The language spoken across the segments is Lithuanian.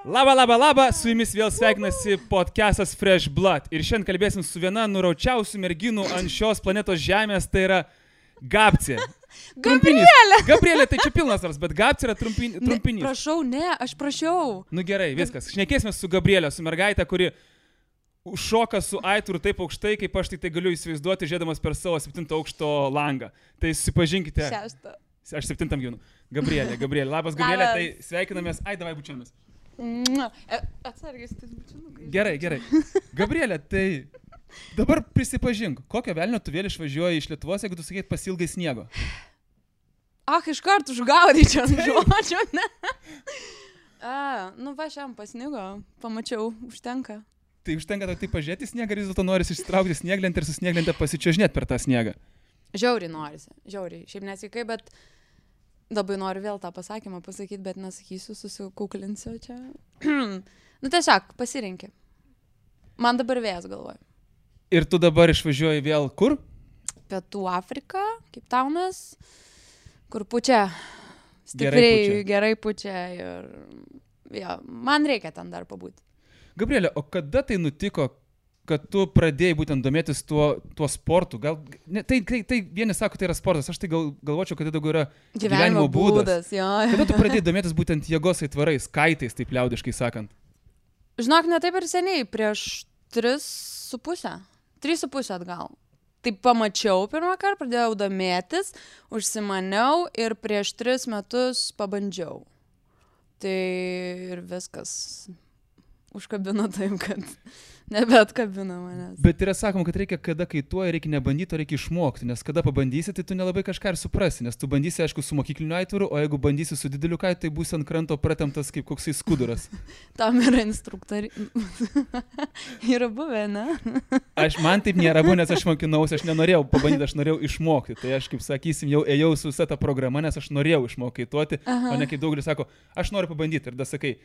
Labą, su jumis vėl sveikinasi podcastas Fresh Blood. Ir šiandien kalbėsim su viena nuraučiausių merginų ant šios planetos Žemės, tai yra Gabcė. Gabrielė, tai čia pilnas vars, bet Gabcė yra trumpinys. Ne, prašau, aš prašiau. Nu gerai, viskas. Šnekėsime su Gabrielė, su mergaitė, kuri šoka su aitvaru taip aukštai, kaip aš tai galiu įsivaizduoti, žiūrėdamas per savo 7 aukšto langą. Tai susipažinkite. 6. Aš 7 gyvenu. Gabrielė. Labas, Gabrielė, tai sveikinamės. Ai, davai bučiamės. Atsargiai, tai bučianukai. Gerai. Gabrielė, tai dabar prisipažink, kokio velnio tu vėl išvažiuoji iš Lietuvos, jeigu tu sakėt pasilgai sniego? Iš karto užgaudyčiau ant žodžio, ne? Šiam pasnigo, pamačiau, užtenka. Tai užtenka tai pažiūrėti sniegą, ar vis dėlto norisi išsitraukti snieglentę ir su snieglente pasičiuožinėti per tą sniegą? Žiauriai norisi. Šiaip nesveikai, bet labai noriu vėl tą pasakymą pasakyti, bet nesakysiu, susikuklinsiu čia. Tiesiog, pasirinki. Man dabar vėjas galvoju. Ir tu dabar išvažiuoji vėl kur? Pietų Afrika, Cape Townas, kur pučia. Stipriai, gerai pučia ir man reikia ten dar pabūti. Gabrielė, o kada tai nutiko, kad tu pradėjai būtent domėtis tuo sportu? Tai vieni sako, tai yra sportas, aš tai galvočiau, kad tai daugiau yra gyvenimo būdas. Kada tu pradėjai domėtis būtent jėgos aitvarais, kaitais, taip liaudiškai sakant? Žinok, ne taip ir seniai, prieš 3,5 atgal. Taip pamačiau pirmą kartą, pradėjau domėtis, užsimaniau ir prieš 3 metus pabandžiau. Tai ir viskas užkabino taip, kad nebeatkabino manęs. Bet yra sakoma, kad reikia, kada kaituoja, reikia nebandyti, o reikia išmokti, nes kada pabandysi, tai tu nelabai kažką ir suprasi, nes tu bandysi, aišku, su mokykliniu aitvaru, o jeigu bandysi su dideliu kaitu, tai būsi ant kranto pratemptas kaip koksai skuduras. Tam yra instruktoriai. Yra buvę, ne? Man taip nėra buvę, nes aš mokinausi, aš nenorėjau pabandyti, aš norėjau išmokti. Tai aš, kaip sakysim, jau ėjau su visa ta programa, nes aš norėjau išmokti kaituoti, o ne kaip daugelis sako, aš noriu pabandyti ir da sakai,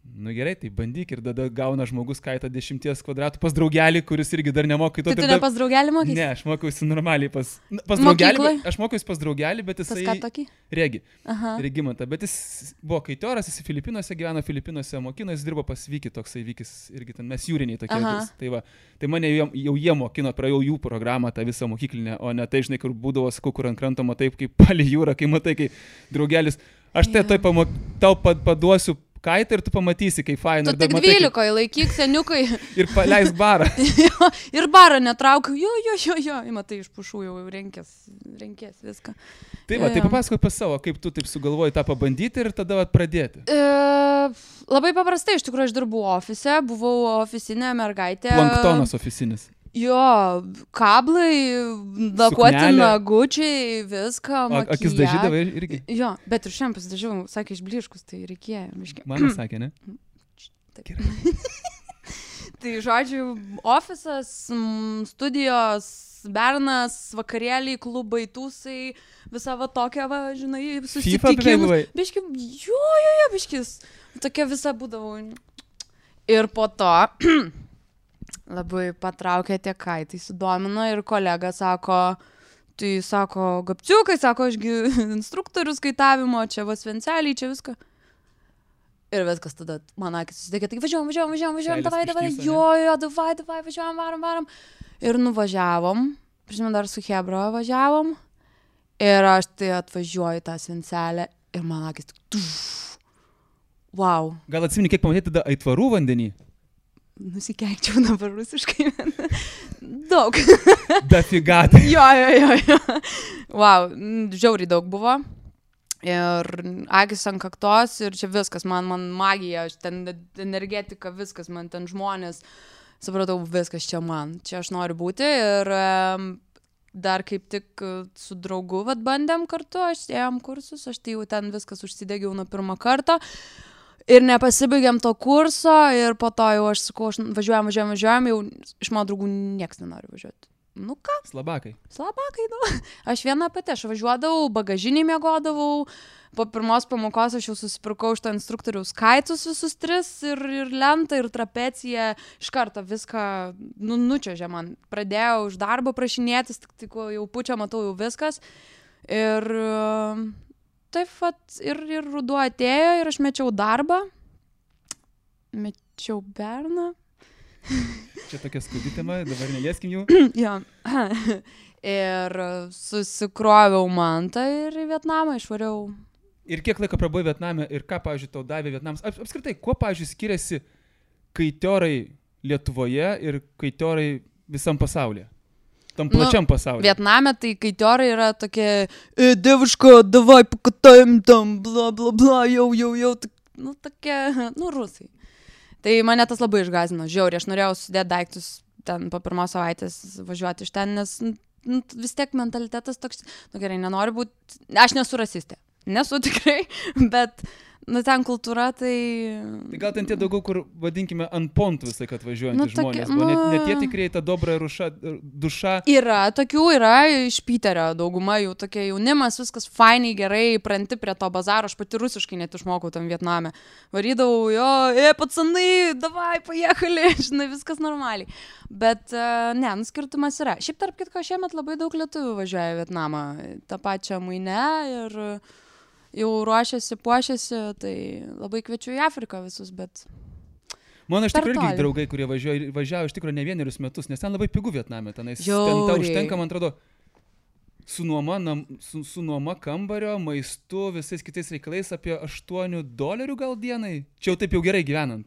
nu gerai, tai bandyk ir tada gauna žmogus kaitą 10 kvadratų pas draugelį, kuris irgi dar nemoka kaituoti. Tai tu ne pas draugelį mokysi? Ne, aš mokiausi normaliai pas draugelį. Aš mokiausi pas draugelį, bet jisai... Pas ką tokį? Regimantą. Bet jis buvo kaitioras, jis Filipinuose gyveno, Filipinuose mokino, jis dirbo pas Vykį, toksai Vykis irgi ten, mes jūriniai tokie. Tai mane jau jie mokino, praėjau jų programą, tą visą mokyklinę, o ne tai, žinai, kur būdavo, sakau, kur ant kranto matai, kaip palei jūrą, kai matai, kai draugelis, aš tai tau paduosiu kaitą ir tu pamatysi, kaip faina. Tu tik 12 laikyk, seniukai. Ir paleis barą. Ir barą netraukiu. Jo. Matai, iš pušų jau renkės viską. Tai papasakok pas savo, kaip tu taip sugalvoji tą pabandyti ir tada pradėti. Labai paprastai, iš tikrųjų, aš dirbu ofise, buvau ofisinė mergaitė. Planktonas ofisinis. Jo, kablai, dakuoti nagučiai, viską, makijažą. Akis dažydavai irgi? Jo, bet ir šiandien pasidažiau, sakė, išbliškus, tai reikėjo. Man sakė, ne? Taip. Tai, žodžiu, ofisas, studijos, bernas, vakarėliai, klubai, tūsai, visa tokia, žinai, susitikimus. Biškis. Tokia visa būdavo. Ir po to... Labai patraukė tie kaitai, sudomino ir kolega sako, Gabciukai, sako, ašgi instruktorius kaitavimo, čia Svenceliai, čia viską. Ir viskas tada, man akis susidėkė, tai važiuojam, davai, davai, važiuojam, varom. Ir nuvažiavom, prisimenu, dar su Hebra važiavom, ir aš tai atvažiuoju tą Svencelę ir man akis tik, wow. Gal atsimeni, kiek pamatėti tada aitvarų vandenį? Nusikeikčiau dabar rusiškai. Daug. Dafigatai. Jo. Wow, žiauriai daug buvo. Ir akis ant kaktos ir čia viskas, man magija, ten energetika, viskas, man ten žmonės. Supratau, viskas čia man. Čia aš noriu būti ir dar kaip tik su draugu bandėm kartu, aš ėjom kursus, aš tai jau ten viskas užsidegiau nuo pirmą kartą. Ir nepasibaigėm to kurso ir po to jau aš sakau, važiuojam, jau iš mano draugų nieks nenori važiuoti. Nu ką? Slabakai, Aš viena pati, aš važiuodavau, bagažinį miegodavau, po pirmos pamokos aš jau susipirkau iš to instruktoriaus kaitus visus 3 ir lentą, ir trapeciją, iš karto viską nučiuožė man. Pradėjau iš darbo prašinėtis, tik jau pučia, matau jau viskas. Ir... taip vat ir ruduo atėjo ir aš mečiau darbą mečiau berną. Čia tokia skaudi tema, dabar nelieskim jų. Jo. Ir susikroviau mantą ir į Vietnamą išvariau. Ir kiek laiko prabuvai Vietname ir ką, pavyzdžiui, tau davė Vietnamas? Apskritai, kuo, pavyzdžiui, skiriasi kaitiorai Lietuvoje ir kaitiorai visam pasaulyje? Tam plačiam pasaulyje. Vietname tai kaitiorai yra tokie, deviško, davai pakataim tam, bla, bla, bla, jau, tokie, rusai. Tai mane tas labai išgąsdino, žiauriai, aš norėjau sudėti daiktus ten po pirmos savaitės važiuoti iš ten, nes vis tiek mentalitetas toks, gerai, nenoriu būti, aš nesu rasistė, nesu tikrai, bet ten kultūra, tai... Tai gal ten tie daugiau, kur vadinkime ant pontų visai, kad važiuojantys žmonės, ne tie tikrai ta dobra duša. Yra, iš Piterio dauguma jų tokie jaunimas, viskas fainiai, gerai, pranti prie to bazaro, aš pati rusiškai net išmokau tam Vietname. Varydavau, pacanai, davai, pajechali, žinai, viskas normaliai. Bet, skirtumas yra. Šiaip tarp kitko, šiemet labai daug lietuvių važiuoja į Vietnamą, tą pačią mainę ir... jau ruošiasi, puošiasi, tai labai kviečiu į Afriką visus, bet... Mano iš tikrųjų irgi draugai, kurie važiavo iš tikrųjų ne vienerius metus, nes ten labai pigu Vietname, ten tau užtenka, man atrodo, su nuoma kambario, maistu, visais kitais reikalais apie $8 gal dienai. Čia jau taip jau gerai gyvenant.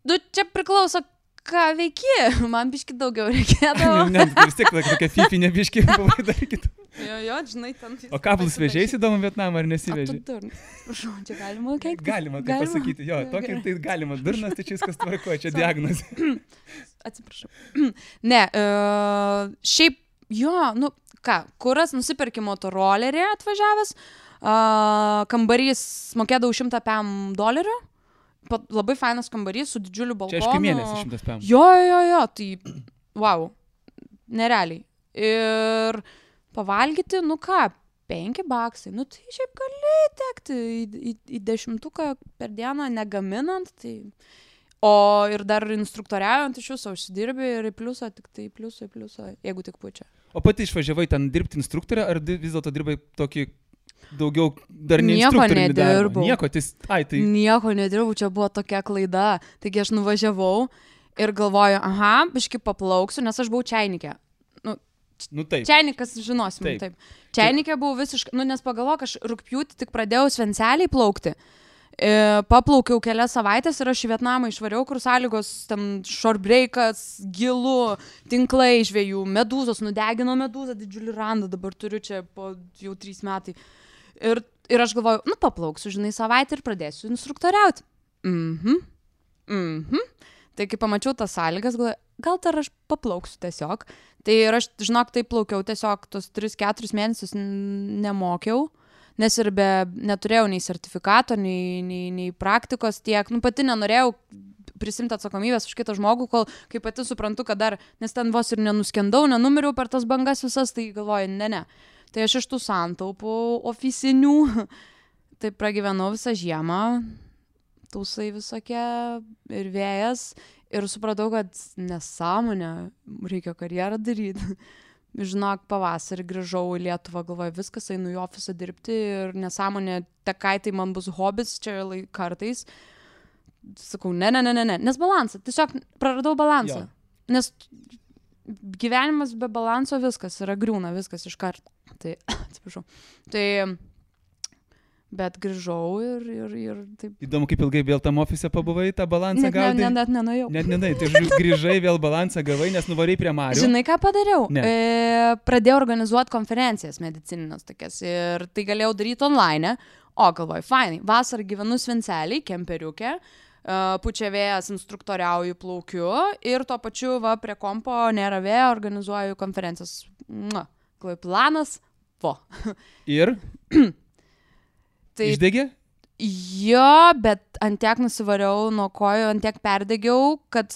Čia priklauso, ką veiki, man biški daugiau reikėdavo. Ne, vis tiek tokia fifinė biški buvai dar kitą. Jo, žinai, ten... O kablus vežėjai įdomu Vietnamą ar nesiveži? Prašau, čia galima keiktis? Galima tai pasakyti, jo, tokį tai galima. Durnas, tai čia viskas tvarkoja, čia diagnozė. Atsiprašau. Ne, šiaip, kuras nusipirki motorolerį atvažiavęs, kambarys mokėdavau $100. Labai fainas kambarys su didžiuliu balkonu. Čia aišku mėnesį 100 PM. Jo, tai wow, nerealiai. Ir pavalgyti, $5, tai šiaip gali tekti į 10 per dieną negaminant, tai... O ir dar instruktoriaujant iš jūsų užsidirbi ir į pliusą, tik tai pliusą, jeigu tik pučia. O pati išvažiavai ten dirbti instruktorę, ar vis dėlto dirbai tokį daugiau dar ne instruktorių darbą? Nieko nedirbau, čia buvo tokia klaida. Taigi aš nuvažiavau ir galvoju, biški paplauksiu, nes aš buvau čainikė. Taip. Čiainikas žinosim, taip. Čiainikė buvau visiškai, nes pagalvok, aš rugpjūtį tik pradėjau Svenceliai plaukti. Paplaukiau kelias savaitės ir aš į Vietnamą išvariau, kur sąlygos, ten shortbreakas, gilu, tinklai žvejų, medūzos, nudegino medūzą, didžiulį randą, dabar turiu čia po jau 3 metai. Ir aš galvoju, paplauksiu, žinai, savaitę ir pradėsiu instruktoriauti. Tai kai pamačiau tas sąlygas, galvoju, gal dar aš paplauksiu tiesiog. Tai ir aš, žinok, taip plaukiau tiesiog tos 3-4 mėnesius nemokiau, nes ir neturėjau nei sertifikato, nei praktikos tiek. Pati nenorėjau prisimti atsakomybės už kitą žmogų, kol kai pati suprantu, kad dar, nes ten vos ir nenuskendau, nenumiriau per tas bangas visas, tai galvoju, ne. Tai aš iš tų santaupų oficinių, tai pragyvenau visą žiemą, tūsai visokie ir vėjas. Ir supratau, kad nesąmonė, reikia karjerą daryti. Žinok, pavasarį grįžau į Lietuvą, galvoju, viskas, einu į ofisą dirbti ir nesąmonė, tekai tai man bus hobis, čia kartais. Sakau, ne, nes balansą, tiesiog praradau balansą. Nes gyvenimas be balanso viskas yra griūna, viskas iš karto. Tai, atsiprašau. Tai... Bet grįžau ir taip. Įdomu, kaip ilgai vėl tam ofise pabuvai, tą balansą gaudai? Net nenuėjau. Tai grįžai, vėl balansą gavai, nes nuvarai prie Marių. Žinai, ką padariau? Pradėjau organizuoti konferencijas medicininės tokias ir tai galėjau daryti online. O, galvoju, fainai, vasarą gyvenu Svenceliai, kemperiukė, pučia vėjas, instruktoriauju, plaukiu ir tuo pačiu prie kompo nėra vėjo, organizuoju konferencijas. Galvoju, planas, Ir? Tai... Išdegė? Jo, bet ant tiek nusivariau nuo kojų, ant tiek perdegiau, kad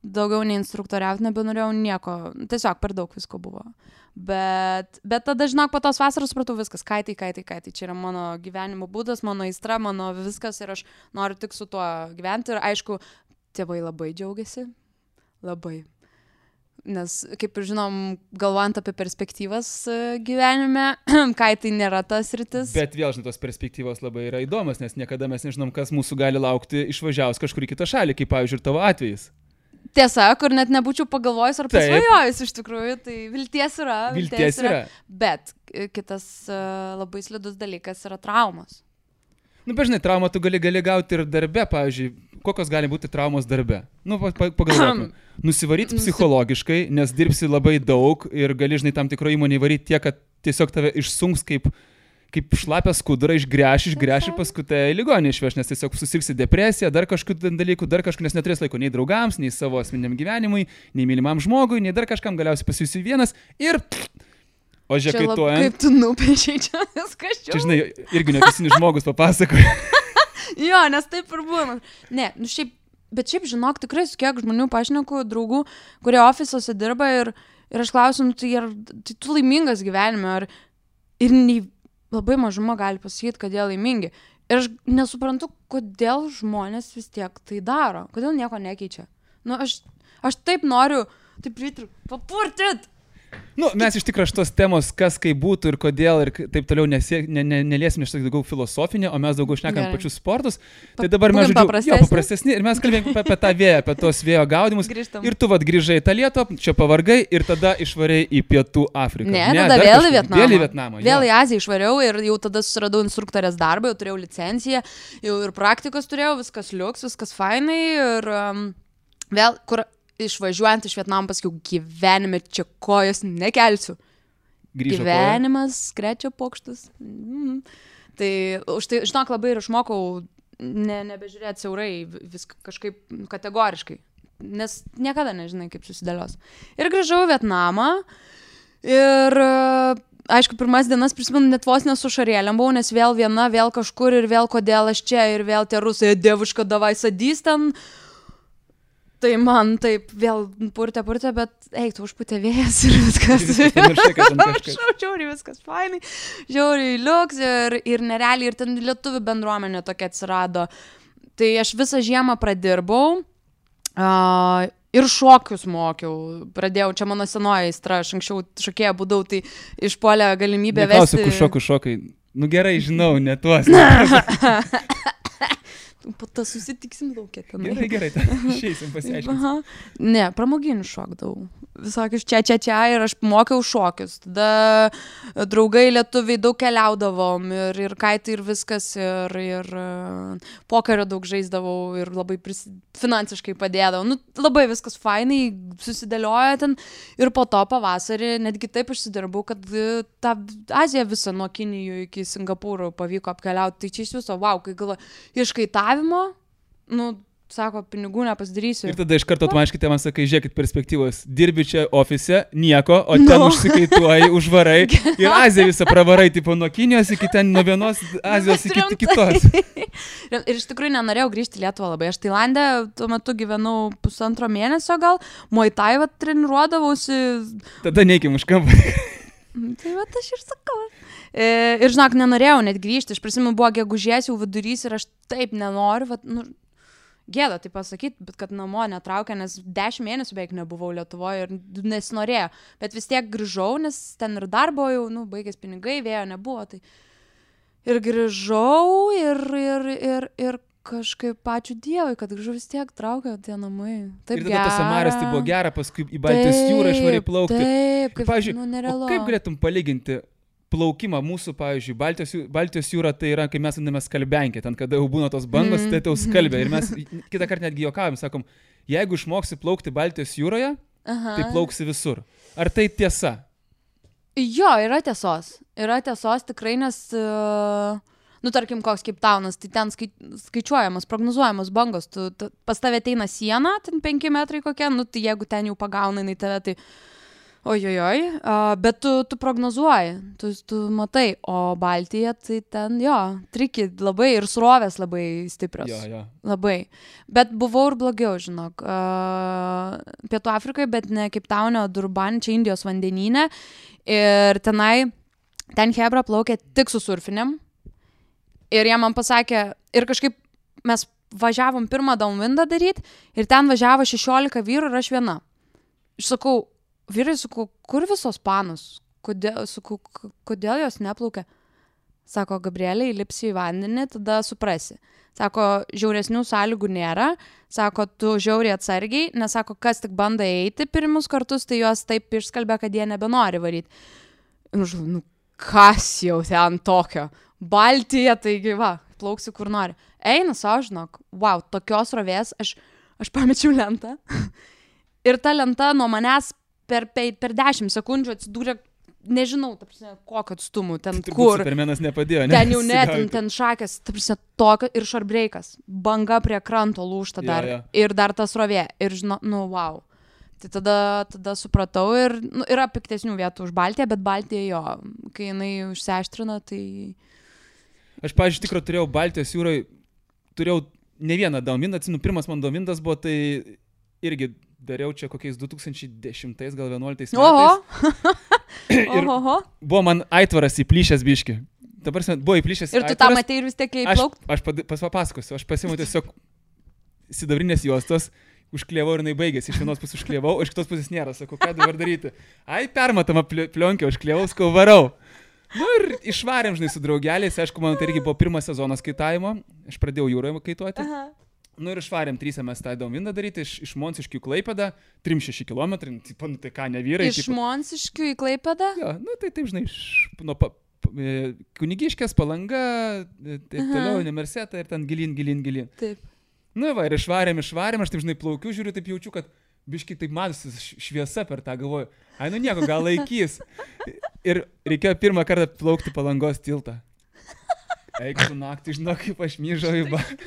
daugiau nei instruktoriauti nebenorėjau nieko. Tiesiog per daug visko buvo. Bet tada, žinok, po tos vasaros supratau viskas. Kaitai. Čia yra mano gyvenimo būdas, mano aistra, mano viskas ir aš noriu tik su tuo gyventi. Ir aišku, tėvai labai džiaugiasi. Labai. Nes, kaip ir žinom, galvojant apie perspektyvas gyvenime, kai tai nėra tas rytis. Bet vėl, žinai, tos perspektyvos labai yra įdomas, nes niekada mes nežinom, kas mūsų gali laukti išvažiavus kažkur į kitą šalį, kaip, pavyzdžiui, ir tavo atvejis. Tiesa, kur net nebūčiau pagalvojus ar pasvajojus iš tikrųjų, tai vilties yra. Vilties yra. Bet kitas labai slidus dalykas yra traumos. Nu, bežinai, traumą tu gali gauti ir darbe, pavyzdžiui, kokios gali būti traumos darbe. Nu, pagalvokime. Nusivaryti psichologiškai, nes dirbsi labai daug ir gali, žinai, tam tikro įmonį varyti tiek, kad tiesiog tave išsunks kaip šlapę skudurą, išgręš ir paskui tai ligonį išveš, nes tiesiog susirgsi depresiją, dar kažkokių dalykų, nes neturės laiko nei draugams, nei savo asmeniniam gyvenimui, nei mylimam žmogui, nei dar kažkam, galiausiai pasijusi vienas ir... O žiekaituojant... Kaip tu nupiešiai čia viskas čia. Čia, žinai, irgi neopisinis žmogus papasakoja. Jo, nes taip ir būna. Ne, nu bet šiaip žinok, tikrai su kiek žmonių pašneku, draugų, kurie ofisuose dirba ir aš klausiu, tai tu laimingas gyvenime, ir labai mažuma gali pasakyti, kad jie laimingi. Ir aš nesuprantu, kodėl žmonės vis tiek tai daro, kodėl nieko nekeičia. Nu, aš taip noriu, taip papurtit. Nu, mes iš tikrųjų šitos temos, kas kaip būtų ir kodėl ir taip toliau neliesim iš daugiau filosofinio, o mes daugiau šnekam pačius sportus. Tai dabar mes paprastesni ir mes kalbėjome apie tą vėją, apie tos vėjo gaudimus. Grįžtam. Ir tu grįžai į tą Lietuvą, čia pavargai ir tada išvarei į Pietų Afriką. Ne, tada vėl į Vietnamą. Vėl į Aziją išvariau ir jau tada susiradau instruktorės darbą, jau turėjau licenciją, jau ir praktikos turėjau, viskas liuks, viskas fainai ir vėl, kur išvažiuojant iš Vietnamo pasakiau, gyvenime čia kojos nekelsiu. Gyvenimas, krečia pokštus. Tai už tai, žinok, labai ir išmokau nebežiūrėti siaurai, viską kažkaip kategoriškai, nes niekada nežinai, kaip susidėlios. Ir grįžau į Vietnamą ir, aišku, pirmas dienas prisimenu, net vos nesu šarėlėm buvau, nes vėl viena, vėl kažkur ir vėl kodėl aš čia ir vėl tie rusai, dievuška, davai sadys ten. Tai man taip vėl purtė, bet tu užputė vėjas ir viskas. Žiauriai viskas fainai, žiauriai liuks ir nerealiai, ir ten lietuvių bendruomenė tokia atsirado. Tai aš visą žiemą pradirbau ir šokius mokiau. Pradėjau, čia mano senoji aistra, aš anksčiau šokėja būdau, tai išpuolė galimybę vesti. Neklausiu, kur šokai. Nu gerai, žinau, ne tuos. Po to susitiksim laukia ten. Gerai, išeisim pasiaiškinti. Ne, pramoginių šokdavau. Visokius čia ir aš mokiau šokius. Tada draugai lietuviai daug keliaudavom ir kaitai ir viskas ir pokerio daug žaisdavau ir labai finansiškai padėdavau. Nu, labai viskas fainai susidėlioja ten ir po to pavasarį netgi taip išsidirbau, kad tą Aziją visą nuo Kinijų iki Singapūro pavyko apkeliauti. Tai čia iš viso, kai galvoju, iškaitavimo, sako, pinigų nepasidarysiu. Ir tada iš karto automatiškai tėvams sakai, žiūrėkit perspektyvos, dirbi čia ofise, nieko, o ten užsikaituoji, užvarai ir Aziją visą pravarai, tipo nuo Kinijos iki ten, nuo vienos Azijos iki kitos. Ir iš tikrųjų nenorėjau grįžti į Lietuvą labai. Aš Tailande tuo metu gyvenau 1,5 mėnesio gal, Muay Thai treniruodavausi. Tada neikim už kampą. Tai aš ir sakau. Ir žinok, nenorėjau net grįžti. Aš prisimenu, buvo gegužės jau vidurys ir aš taip nenoriu, gėda tai pasakyti, bet kad namo netraukia, nes 10 mėnesių beveik nebuvau Lietuvoje ir nesinorėjo. Bet vis tiek grįžau, nes ten ir darbo jau, baigės pinigai, vėjo nebuvo. Tai... Ir grįžau ir kažkaip ačiū Dievui, kad grįžau vis tiek traukia tie namai. Taip ir tada tas Samaras tai buvo gera, paskui į Baltijos jūrą išvarai plaukti. Taip, pavyzdžiui, nerealu. Kaip galėtum palyginti plaukimą mūsų, pavyzdžiui, Baltijos jūra tai yra, kai mes vadiname skalbenkė, ten kada jau būna tos bangos, tai tau skalbia. Ir mes kitą kartą netgi juokavom, sakom, jeigu išmoksi plaukti Baltijos jūroje, tai plauksi visur. Ar tai tiesa? Jo, yra tiesos. Yra tiesos tikrai, nes, tarkim, koks Cape Townas, tai ten skaičiuojamas, prognozuojamas bangos. Pas tave ateina siena, ten 5 metrai kokia, tai jeigu ten jau pagauna į tave, tai... Ojojoj, bet tu prognozuoji, tu matai, o Baltija tai ten, triki labai ir srovės labai stiprios. Jo. Labai. Bet buvau ir blogiau, žinok. Pietų Afrikoje, bet ne Cape Town'e, Durban, čia Indijos vandenyne. Ir ten hebra plaukė tik su surfinėm. Ir jie man pasakė, ir kažkaip mes važiavom pirmą downwindą daryti, ir ten važiavo 16 vyrų ir aš viena. sakau, vyrai, sakau, kur visos panos? Kodėl jos neplaukia? Sako, Gabrielė, įlipsi į vandenį, tada suprasi. Sako, žiauresnių sąlygų nėra. Sako, tu žiauriai atsargiai, nes sako, kas tik bando eiti pirmus kartus, tai jos taip išskalbė, kad jie nebenori varyti. Nu, kas jau ten tokio? Baltija, taigi va, plauksiu kur nori. Eina savo, žinok, wow, tokios rovės, aš pamečiau lentą. Ir ta lenta nuo manęs per 10 sekundžių atsidūrė, nežinau, ta prasme, kokio atstumų, ten tai kur. Supermenas nepadėjo, ne? Ten jau net, ten šakės, ta prasme, tokio ir šarbreikas. Banga prie kranto lūžta dar. Jo. Ir dar tas rovė. Ir žinau, nu, wow. Tai tada supratau ir yra piktesnių vietų už Baltiją, bet Baltija jo, kai jinai užsiaštrina, tai... Aš, pavyzdžiui, tikrai turėjau Baltijos jūroje, turėjau ne vieną downwindą, atsimenu, pirmas man downwindas buvo, tai irgi dariau čia kokiais 2010 gal 11 metais. Oho. Buvo man aitvaras įplyšęs biški. Dabar buvo įplyšęs ir tu tą matei ir vis tiek įplaukti? Aš papasakosiu, aš pasiimu tiesiog sidabrinės juostos, užklievau ir jinai baigėsi. Iš vienos pusės užklievau, iš kitos pusės nėra. Sakau, ką dabar daryti? Permatama plionkę, užklievau, skau varau. Nu ir išvarėm, žinai, su draugeliais. Aišku, man tai irgi buvo pirmas sezonas kaitavimo. Aš pradėjau jūroje kaituoti. Aha. Nu ir išvarėm 3 mes tą downwindą daryti iš Monsiškių į Klaipėdą, 3-6 km, tai ką, ne vyrai. Iš Monsiškių į Klaipėdą? Jo, nu tai taip, žinai, nuo Kunigiškės, Palanga, taip toliau, Nemerseta ir ten gilin. Taip. Nu va, ir išvarėm, aš taip, žinai, plaukiu, žiūriu, taip jaučiu, kad biškai taip matosi šviesa per tą, galvoju, ai, nu nieko, gal laikys. Ir reikėjo pirmą kartą plaukti Palangos tiltą. Eik su naktį, žinau, kaip aš myžau į batą.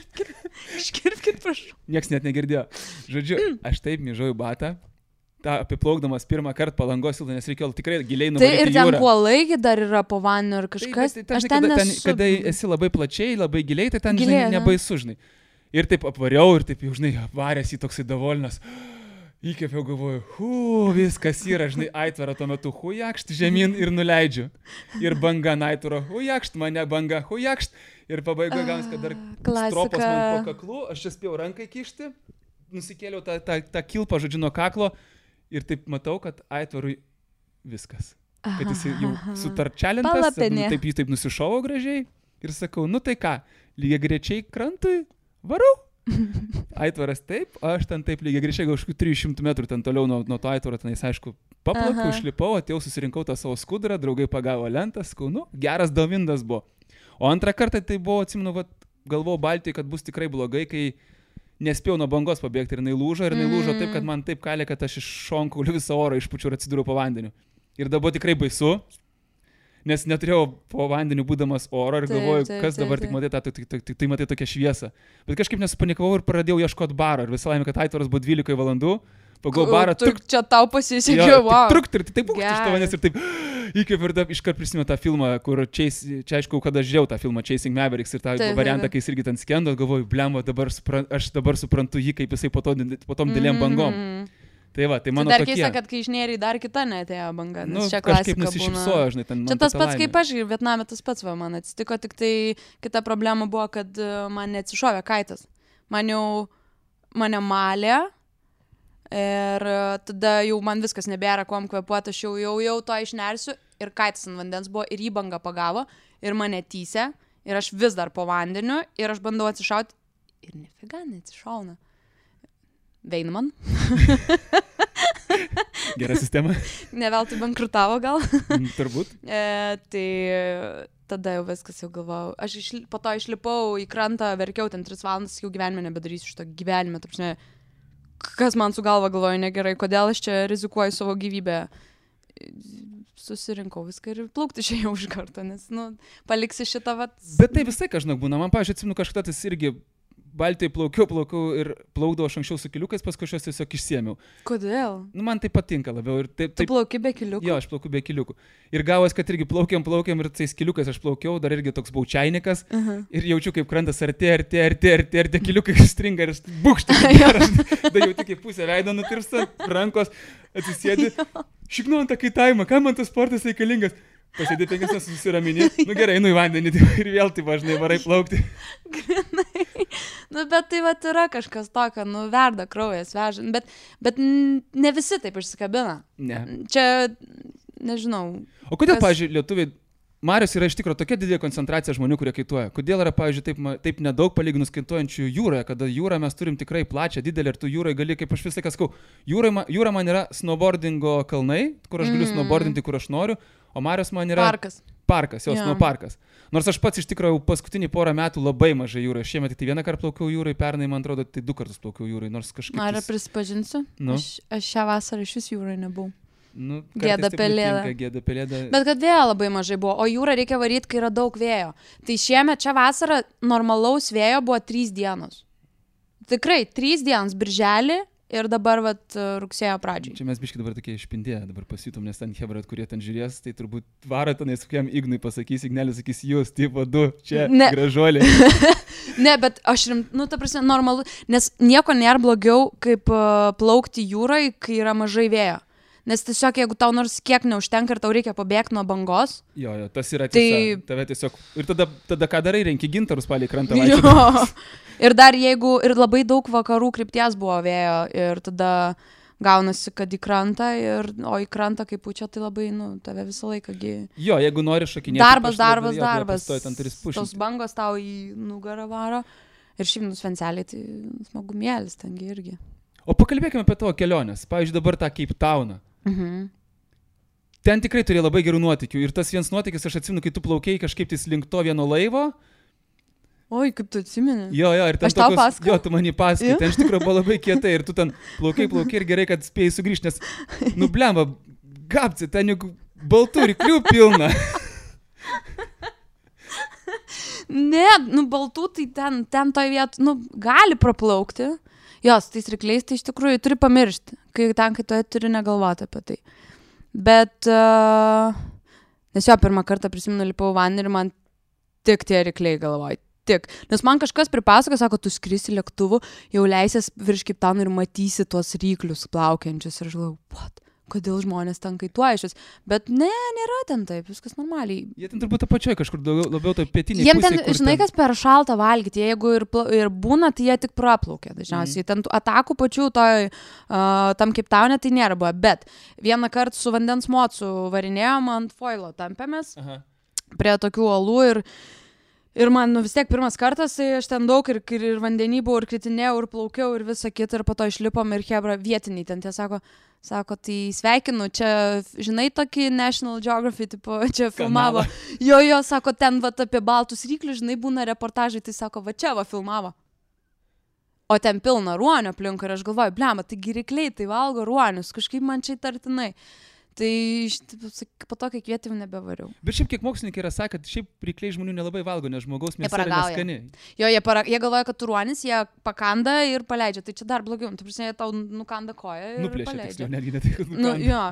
Iškirpkit, prašau. Niekas net negirdėjo. Žodžiu, aš taip myžau į batą, tą apiplaukdamas pirmą kartą Palangos tiltą, nes reikėjo tikrai giliai nuvaryti jūrą. Tai ir ten kuolai dar yra po vandeniu ir kažkas. Tai, kada esi labai plačiai, labai giliai, tai ten žinai, nebaisu, žinai. Ir taip apvariau, ir taip jau, žinai, apvaręs į toksai davolinas. Įkėpiau, galvoju, viskas yra, žinai, aitvarą tuo metu, hujakšt žemyn ir nuleidžiu. Ir banga aitvarą, hujakšt mane banga, hujakšt. Ir pabaigoje gaunasi, kad dar stropos man po kaklu, aš čia spėjau rankai kišti, nusikėliau tą kilpą, žodžiu, nuo kaklo ir taip matau, kad aitvarui viskas. Kad jis jau sutarčelintas, taip jis taip nusišovo gražiai ir sakau, nu tai ką, lygiai grečiai krantui, varau. Aitvaras taip, aš ten taip lygiai greičiai, gal kažkokių 300 metrų ten toliau nuo to aitvaro, tenais aišku, paplakau, išlipau, atėjau, susirinkau tą savo skudurą, draugai pagavo lentą, sakau, nu, geras downwindas buvo. O antrą kartą tai buvo, atsimenu, galvojau Baltijai, kad bus tikrai blogai, kai nespėjau nuo bangos pabėgti ir jinai lūžo taip, kad man taip kalė, kad aš iš šonkaulių visą orą išpučiu ir atsidūriau po vandeniu. Ir dabar tikrai baisu. Nes neturėjau po vandeniu būdamas oro ir galvoju, kas dabar tik matai, tai matai tokią šviesą. Bet kažkaip nesupanikavau ir pradėjau ieškoti baro. Ir visą laimę, kad aitvaras buvo 12 valandų. Pagal barą. Čia tau pasisekė, wow. Ir taip būkšti iš tavęs ir taip įkvėpiau ir iškart prisimenu tą filmą, kur čia aišku, kada žiūrėjau tą filmą Chasing Mavericks ir tą variantą, kai jis irgi ten skendo, galvoju, blemba, aš dabar suprantu jį, kaip jisai po tom dėlėm bangom. Tai va, tai mano dar tokie. keista, kad kai išnėrė dar kita neatėjo banga, nes čia kažkaip klasika nusišypsojo, žinai, ten. Čia tas pats kaip aš, Vietname tas pats man atsitiko, tik tai kita problema buvo, kad man neatsišovė kaitas. Mane malė ir tada jau man viskas nebėra kuom kvėpuoti, aš jau to išnersiu ir kaitas ant vandens buvo ir jį banga pagavo ir mane tysė ir aš vis dar po vandeniu ir aš bandau atsišauti ir nefiga neatsišauna. Veinman. Gera sistema. Neveltui bankrutavo gal. Turbūt. Tai tada jau viskas jau galvojau. Aš po to išlipau į krantą, verkiau ten 3 valandas, jau gyvenime nebedarysiu šito gyvenime. Tapšne, kas man su galva galvoju negerai, kodėl aš čia rizikuoju savo gyvybę. Susirinkau viską ir plaukti čia jau iš karto, nes, paliksi šitą vat. Bet tai visai kažkaip būna. Man, pavyzdžiui, atsimenu kažkada tas irgi Baltijai plaukiau ir plaukdavau aš anksčiau su kiliukais, paskui aš juos tiesiog išsiėmiau. Kodėl? Man tai patinka labiau. Ir taip, tu plauki be kiliukų? Jo, aš plaukiu be kiliukų. Ir gavos, kad irgi plaukiam ir tais kiliukais aš plaukiau, dar irgi toks baučiainikas. Ir jaučiu, kaip krantas artėja, ir tie kiliukai stringa ir bukštai. Da jau tik į pusę veido nutirpsta, rankos atsisėdi. Šiknu ant tą kaitavimą, kam man tas sportas reikalingas? Pasėdė 5 minutes, susiramini, nu gerai, einu į vandenį ir vėl tai važnai varai plaukti. Grinai. Nu, bet tai vat yra kažkas tokio, nu, verda kraujas, veža, bet ne visi taip išsikabina. Ne. Čia, nežinau. O kodėl, pavyzdžiui, lietuviai, Marios yra iš tikrųjų tokia didelė koncentracija žmonių, kurie kaituoja. Kodėl yra, pavyzdžiui, taip nedaug palyginus kaituojančių jūroje, kada jūrą mes turim tikrai plačią, didelę ir tu jūrai gali, kaip aš visą laiką sakau, jūra man yra snowboardingo kalnai, kur aš galiu snowboardinti, kur aš noriu, o Marios man yra parkas, jos snowparkas. Nors aš pats iš tikrųjų paskutinį porą metų labai mažai jūrai. Šiemet tai vieną kartą plaukiau jūrai, pernai, man atrodo, tai 2 kartus plaukiau jūrai, nors kažkaip... Ar prisipažinsiu? Nu? Aš šią vasarą iš vis jūrai nebuvau. Nu, Gėda pelėda. Bet kad vėjo labai mažai buvo, o jūrą reikia varyti, kai yra daug vėjo. Tai šiemet čia vasarą normalaus vėjo buvo 3 dienos. Tikrai 3 dienos, birželį ir dabar rugsėjo pradžiai. Čia mes biškai dabar tokie išpindėję, dabar pasijutom, nes ten hebrat, kurie ten žiūrės, tai turbūt varo tenais kokiam Ignui pasakys, Ignelis sakys, jūs, tipo 2, čia gražuoliai. Ne, bet aš ta prasme, normalu, nes nieko nėra blogiau, kaip plaukti jūrai, kai yra mažai vėjo. Nes tiesiog, jeigu tau nors kiek neužtenka ir tau reikia pabėgti nuo bangos. Jo, tas yra tiesa. Tave tiesiog... Ir tada ką darai, renki gintarus palei krantą. Jo. Ir dar jeigu... Ir labai daug vakarų krypties buvo vėjo. Ir tada gaunasi, kad į krantą. O į krantą kaip pučia, tai labai, tave visą laiką... Jo, jeigu nori šokinėti... Darbas. Tos bangos tau į nugarą varo. Ir šiaip svenceliai, tai smagumėlis tengi irgi. O pakalbėkime apie tavo keliones. Pavyzdžiui, dabar tą Cape Towną. Ten tikrai turėjo labai gerų nuotykių. Ir tas vienas nuotykis, aš atsimenu, kai tu plaukėjai kažkaip tais link to vieno laivo. Oi, kaip tu atsimeni. Jo, ir ten aš tau pasakau. Jo, tu man jį pasakai. Ten iš tikrųjų buvo labai kietai ir tu ten plaukai ir gerai, kad spėjai sugrįžti, nes, blemba, gapci, ten juk baltų ryklių pilna. Ne, baltų tai ten toj vietu, gali praplaukti. Jos, tais rykliais, tai iš tikrųjų turi pamiršti, kai tu turi negalvoti apie tai. Bet, nes jo, pirmą kartą prisimenu, lipau vandenį ir man tik tie rykliai galvoju, tik. Nes man kažkas pripasako, sako, tu skrisi lėktuvu, jau leisies virš Cape Towno ir matysi tuos ryklius plaukiančius. Ir aš galvoju, what? Kodėl žmonės ten kaituoja šis. Bet ne, nėra ten taip, viskas normaliai. Jie ten turbūt apačioje kažkur labiau to pietiniai pusėje. Jiem ten, žinai, kas per šaltą valgyti, jeigu ir būna, tai jie tik praplaukia dažniausiai. Ten atakų pačių tam Cape Towne tai nėra buvo. Bet vieną kartą su vandens mocu varinėjom ant foilo tampėmės prie tokių uolų ir man vis tiek pirmas kartas, tai aš ten daug ir vandenį buvau, ir kritinėjau, ir plaukiau, ir visą kitą, ir po to išlipom ir hebra vietiniai ten tie sako, tai sveikinu, čia, žinai, tokį National Geographic, tipo, čia filmavo. Jo, sako, ten apie baltus ryklius, žinai, būna reportažai, tai sako, čia filmavo. O ten pilna ruonio aplink ir aš galvoju, blema, taigi rykliai, tai valgo ruonius, kažkaip man čia įtartinai. Tai po to, kai kvietėm, nebevariau. Bet šiaip kiek mokslininkai yra sakę, kad šiaip rykliai žmonių nelabai valgo, nes žmogaus mėsa yra neskani. Jo, jie galvoja, kad tu ruonis, jie pakanda ir paleidžia. Tai čia dar blogiau. Tu prasme, jie tau nukanda koją ir nuplėšia, paleidžia. Tiksliau, netgi ne tai, kad nukanda.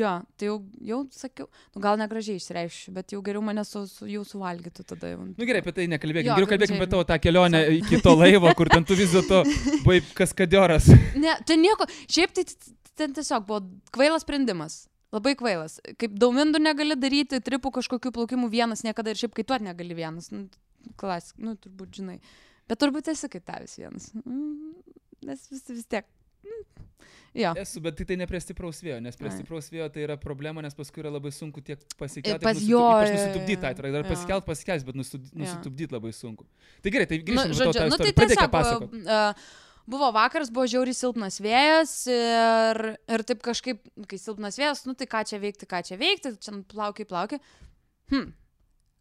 Jo, tai jau sakiau, gal negražiai išreišiu, bet jau geriau mane jau suvalgytų tada jau. Gerai, apie tai nekalbėkim. Geriau kalbėkim apie tavo tą kelionę iki to laivo, kur ten tu vis dėlto buvai kaskadioras. Ne, ten nieko. Šiaip tai ten tiesiog buvo kvailas sprendimas. Labai kvailas. Kaip daumindų negali daryti, tripų kažkokių plaukimų vienas niekada ir šiaip kaituot negali vienas. Klasik, turbūt žinai. Bet turbūt esi kaitavęs vienas. Nes vis tiek. Jo. Esu, bet tai ne prie stipraus vėjo, nes prie stipraus vėjo tai yra problema, nes paskui yra labai sunku tiek pasikelti, ypač nusitupdyti, dar pasikelt, bet nusitupdyti labai sunku. Tai gerai, tai grįžtame į tą istoriją. Pradėkime pasakoti. Buvo vakaras, buvo žiauriai silpnas vėjas ir taip kažkaip, kai silpnas vėjas, tai ką čia veikti, čia plaukiai.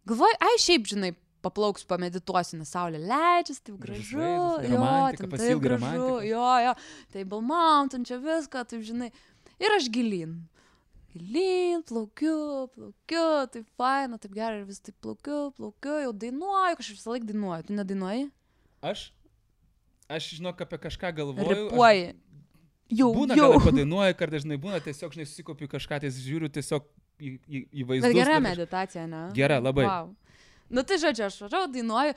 Galvoju, šiaip, žinai, paplauksiu, pamedituosiu, nes saulė leidžiasi, taip gražu, taip gražu, Table Mountain, čia viską, taip, žinai, ir aš gilyn, plaukiu, taip faina, taip gerai, ir vis taip plaukiu, jau dainuoju, kažkaip visą laiką dainuoju, tu nedainuoji? Aš žinok, apie kažką galvoju. Ripuoji. Būna, gal padainuoju, kartais dažnai būna, tiesiog, žinai, susikopiu kažką, tai žiūriu tiesiog į vaizdus. Bet gera meditacija, ne? Gera, labai. Wow. Nu, tai žodžiu, aš važiavau, dainuoju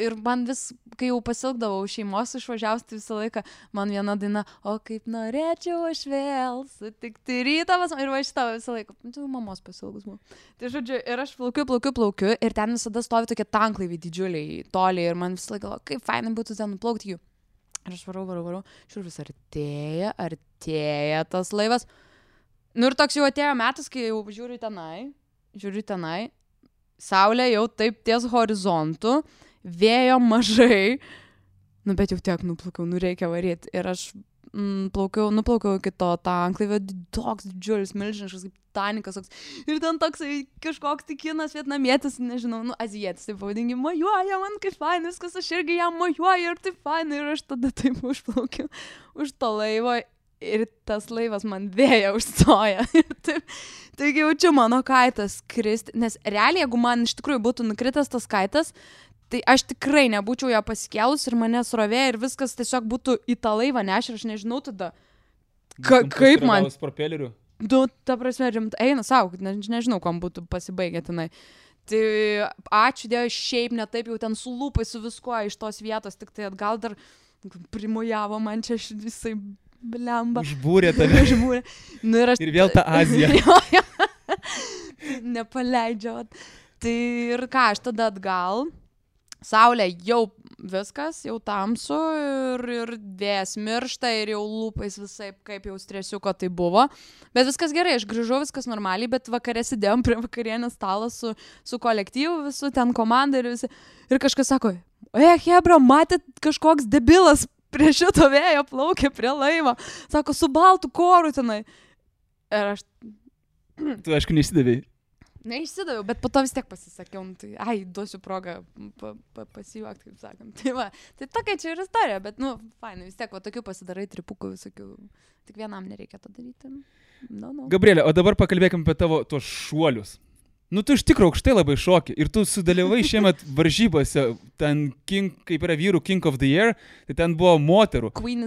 ir man vis, kai jau pasilgdavau šeimos išvažiavus, tai visą laiką man viena daina, o kaip norėčiau aš vėl sutikti rytą, ir va šitą visą laiką, tu mamos pasilgus buvo. Tai žodžiu, ir aš plaukiu ir ten visada stovi tokie tanklaiviai didžiuliai, toliai ir man visą laiką, kaip fainai būtų ten nuplaukti jų. Ir aš varau, žiūrėjau, vis artėja tas laivas. Nu ir toks jau atėjo metas, kai jau žiūriu tenai, saulė jau taip ties horizontu, vėjo mažai, nu bet jau tiek nuplaukiau, nu reikia varyti. Ir aš nuplaukiau iki to tanklaivio, toks didžiulis, milžiniškas, kaip Titanikas, ir ten toksai kažkoks tikinas vietnamietis, nežinau, nu azijietis, taip pavadingi, mojuoja man kaip fainai, viskas, aš irgi jam mojuoju ir taip fainai, ir aš tada taip užplaukiu už to laivo. Ir tas laivas man vėja užstoja. Taigi jaučiu mano kaitas kristi. Nes realiai, jeigu man iš tikrųjų būtų nukritęs tas kaitas, tai aš tikrai nebūčiau ją pasikėlus ir mane srovė ir viskas tiesiog būtų į tą laivą nešę ir aš nežinau tada, kaip man... Propelerių. Nu, ta prasme, eina savo, nežinau, kam būtų pasibaigę tenai. Tai ačiū Dievui, šiaip ne taip jau ten su lūpai, su viskuo iš tos vietos, tik tai atgal dar primojavo man čia visai... Blemba. Užbūrė tave. Nu, ir vėl ta Azija. Nepaleidžia. Tai ir ką, aš tada atgal. Saulė jau viskas, jau tamsu ir vėjas miršta ir jau lūpais visai kaip jau stresiuko tai buvo. Bet viskas gerai, aš grįžau, viskas normaliai, bet vakare sėdėjom prie vakarienės stalo su kolektyvu visų, ten komanda ir visi. Ir kažkas sako, hebra, matėt kažkoks debilas prie šito vėjo plaukė prie laivo. Sako, su baltu koru tenai. Ir aš... Tu, aišku, neišsidavėjai. Neišsidaviau, bet po to vis tiek pasisakiau. Tai, duosiu progą pasijuokti, kaip sakant. Tai va, tai tokia čia ir istorija, bet, nu, fainai, vis tiek, va, tokių pasidarai tripukų visokių. Tik vienam nereikia to daryti. No. Gabrielė, o dabar pakalbėkim apie tavo tuos šuolius. Nu, tu iš tikrųjų aukštai labai šoki ir tu sudalyvavai šiemet varžybose, ten kaip yra vyrų King of the Year, tai ten buvo moterų. Queen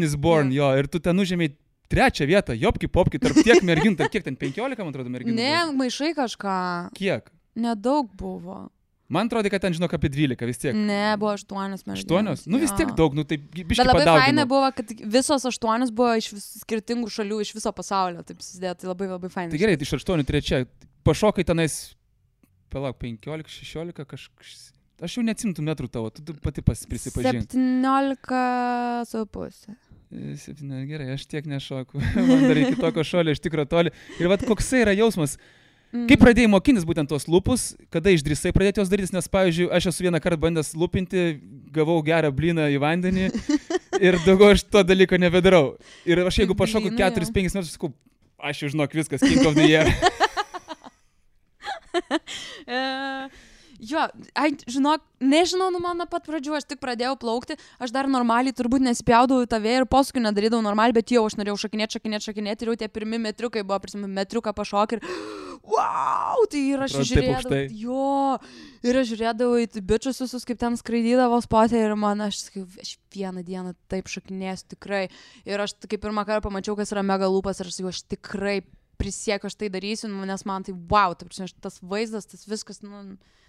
is Born, jo, ir tu ten užėmėjai 3 vietą, jopki popki, tarp tiek merginų, tarp kiek ten 15, man atrodo, merginų. Ne, maišai kažką. Kiek? Nedaug buvo. Man atrodo, kad ten, žinok, apie 12 vis tiek. Ne, buvo 8 merginos. 8? Nu, vis tiek daug, nu, tai biškai padaugino. Bet labai fainai buvo, kad visos 8 buvo iš skirtingų šalių, iš viso pasaulio, taip susidėjo, tai labai labai fainai. Tai gerai, tai iš 8 3. Pašokai tenais, palauk, 15, 16, kažkas, aš jau neatsimtų metrų tavo, tu pati prisipažink. 17,5. 7, gerai, aš tiek nešoku, man dar iki tokio šolio iš tikro toli. Ir vat koksai yra jausmas, kaip pradėjai mokintis būtent tos lūpus, kada išdrįsai pradėti jos daryti, nes, pavyzdžiui, aš esu vieną kartą bandęs lūpinti, gavau gerą blyną į vandenį ir daugiau aš to dalyko nebedarau. Ir aš jeigu pašoku 4-5 metrus, sakau, aš jau žinok viskas, King of the Year. Jo, žinok, nežinau, nu man nuo pat pradžių, aš tik pradėjau plaukti, aš dar normaliai turbūt nespjaudavau į tą vėją ir paskui nedarydavau normaliai, bet jau aš norėjau šakinėti ir jau tie pirmi metriukai buvo, prisimenu, metriuką pašokį ir wow, tai ir aš žiūrėdavau į bičius visus, kaip ten skraidydavo spotė ir man, aš vieną dieną taip šakinėsiu tikrai ir aš kaip pirmą kartą pamačiau, kas yra mega lūpas ir aš tikrai prisiekiu, aš tai darysiu, nes man tai wow, tas vaizdas, tas viskas,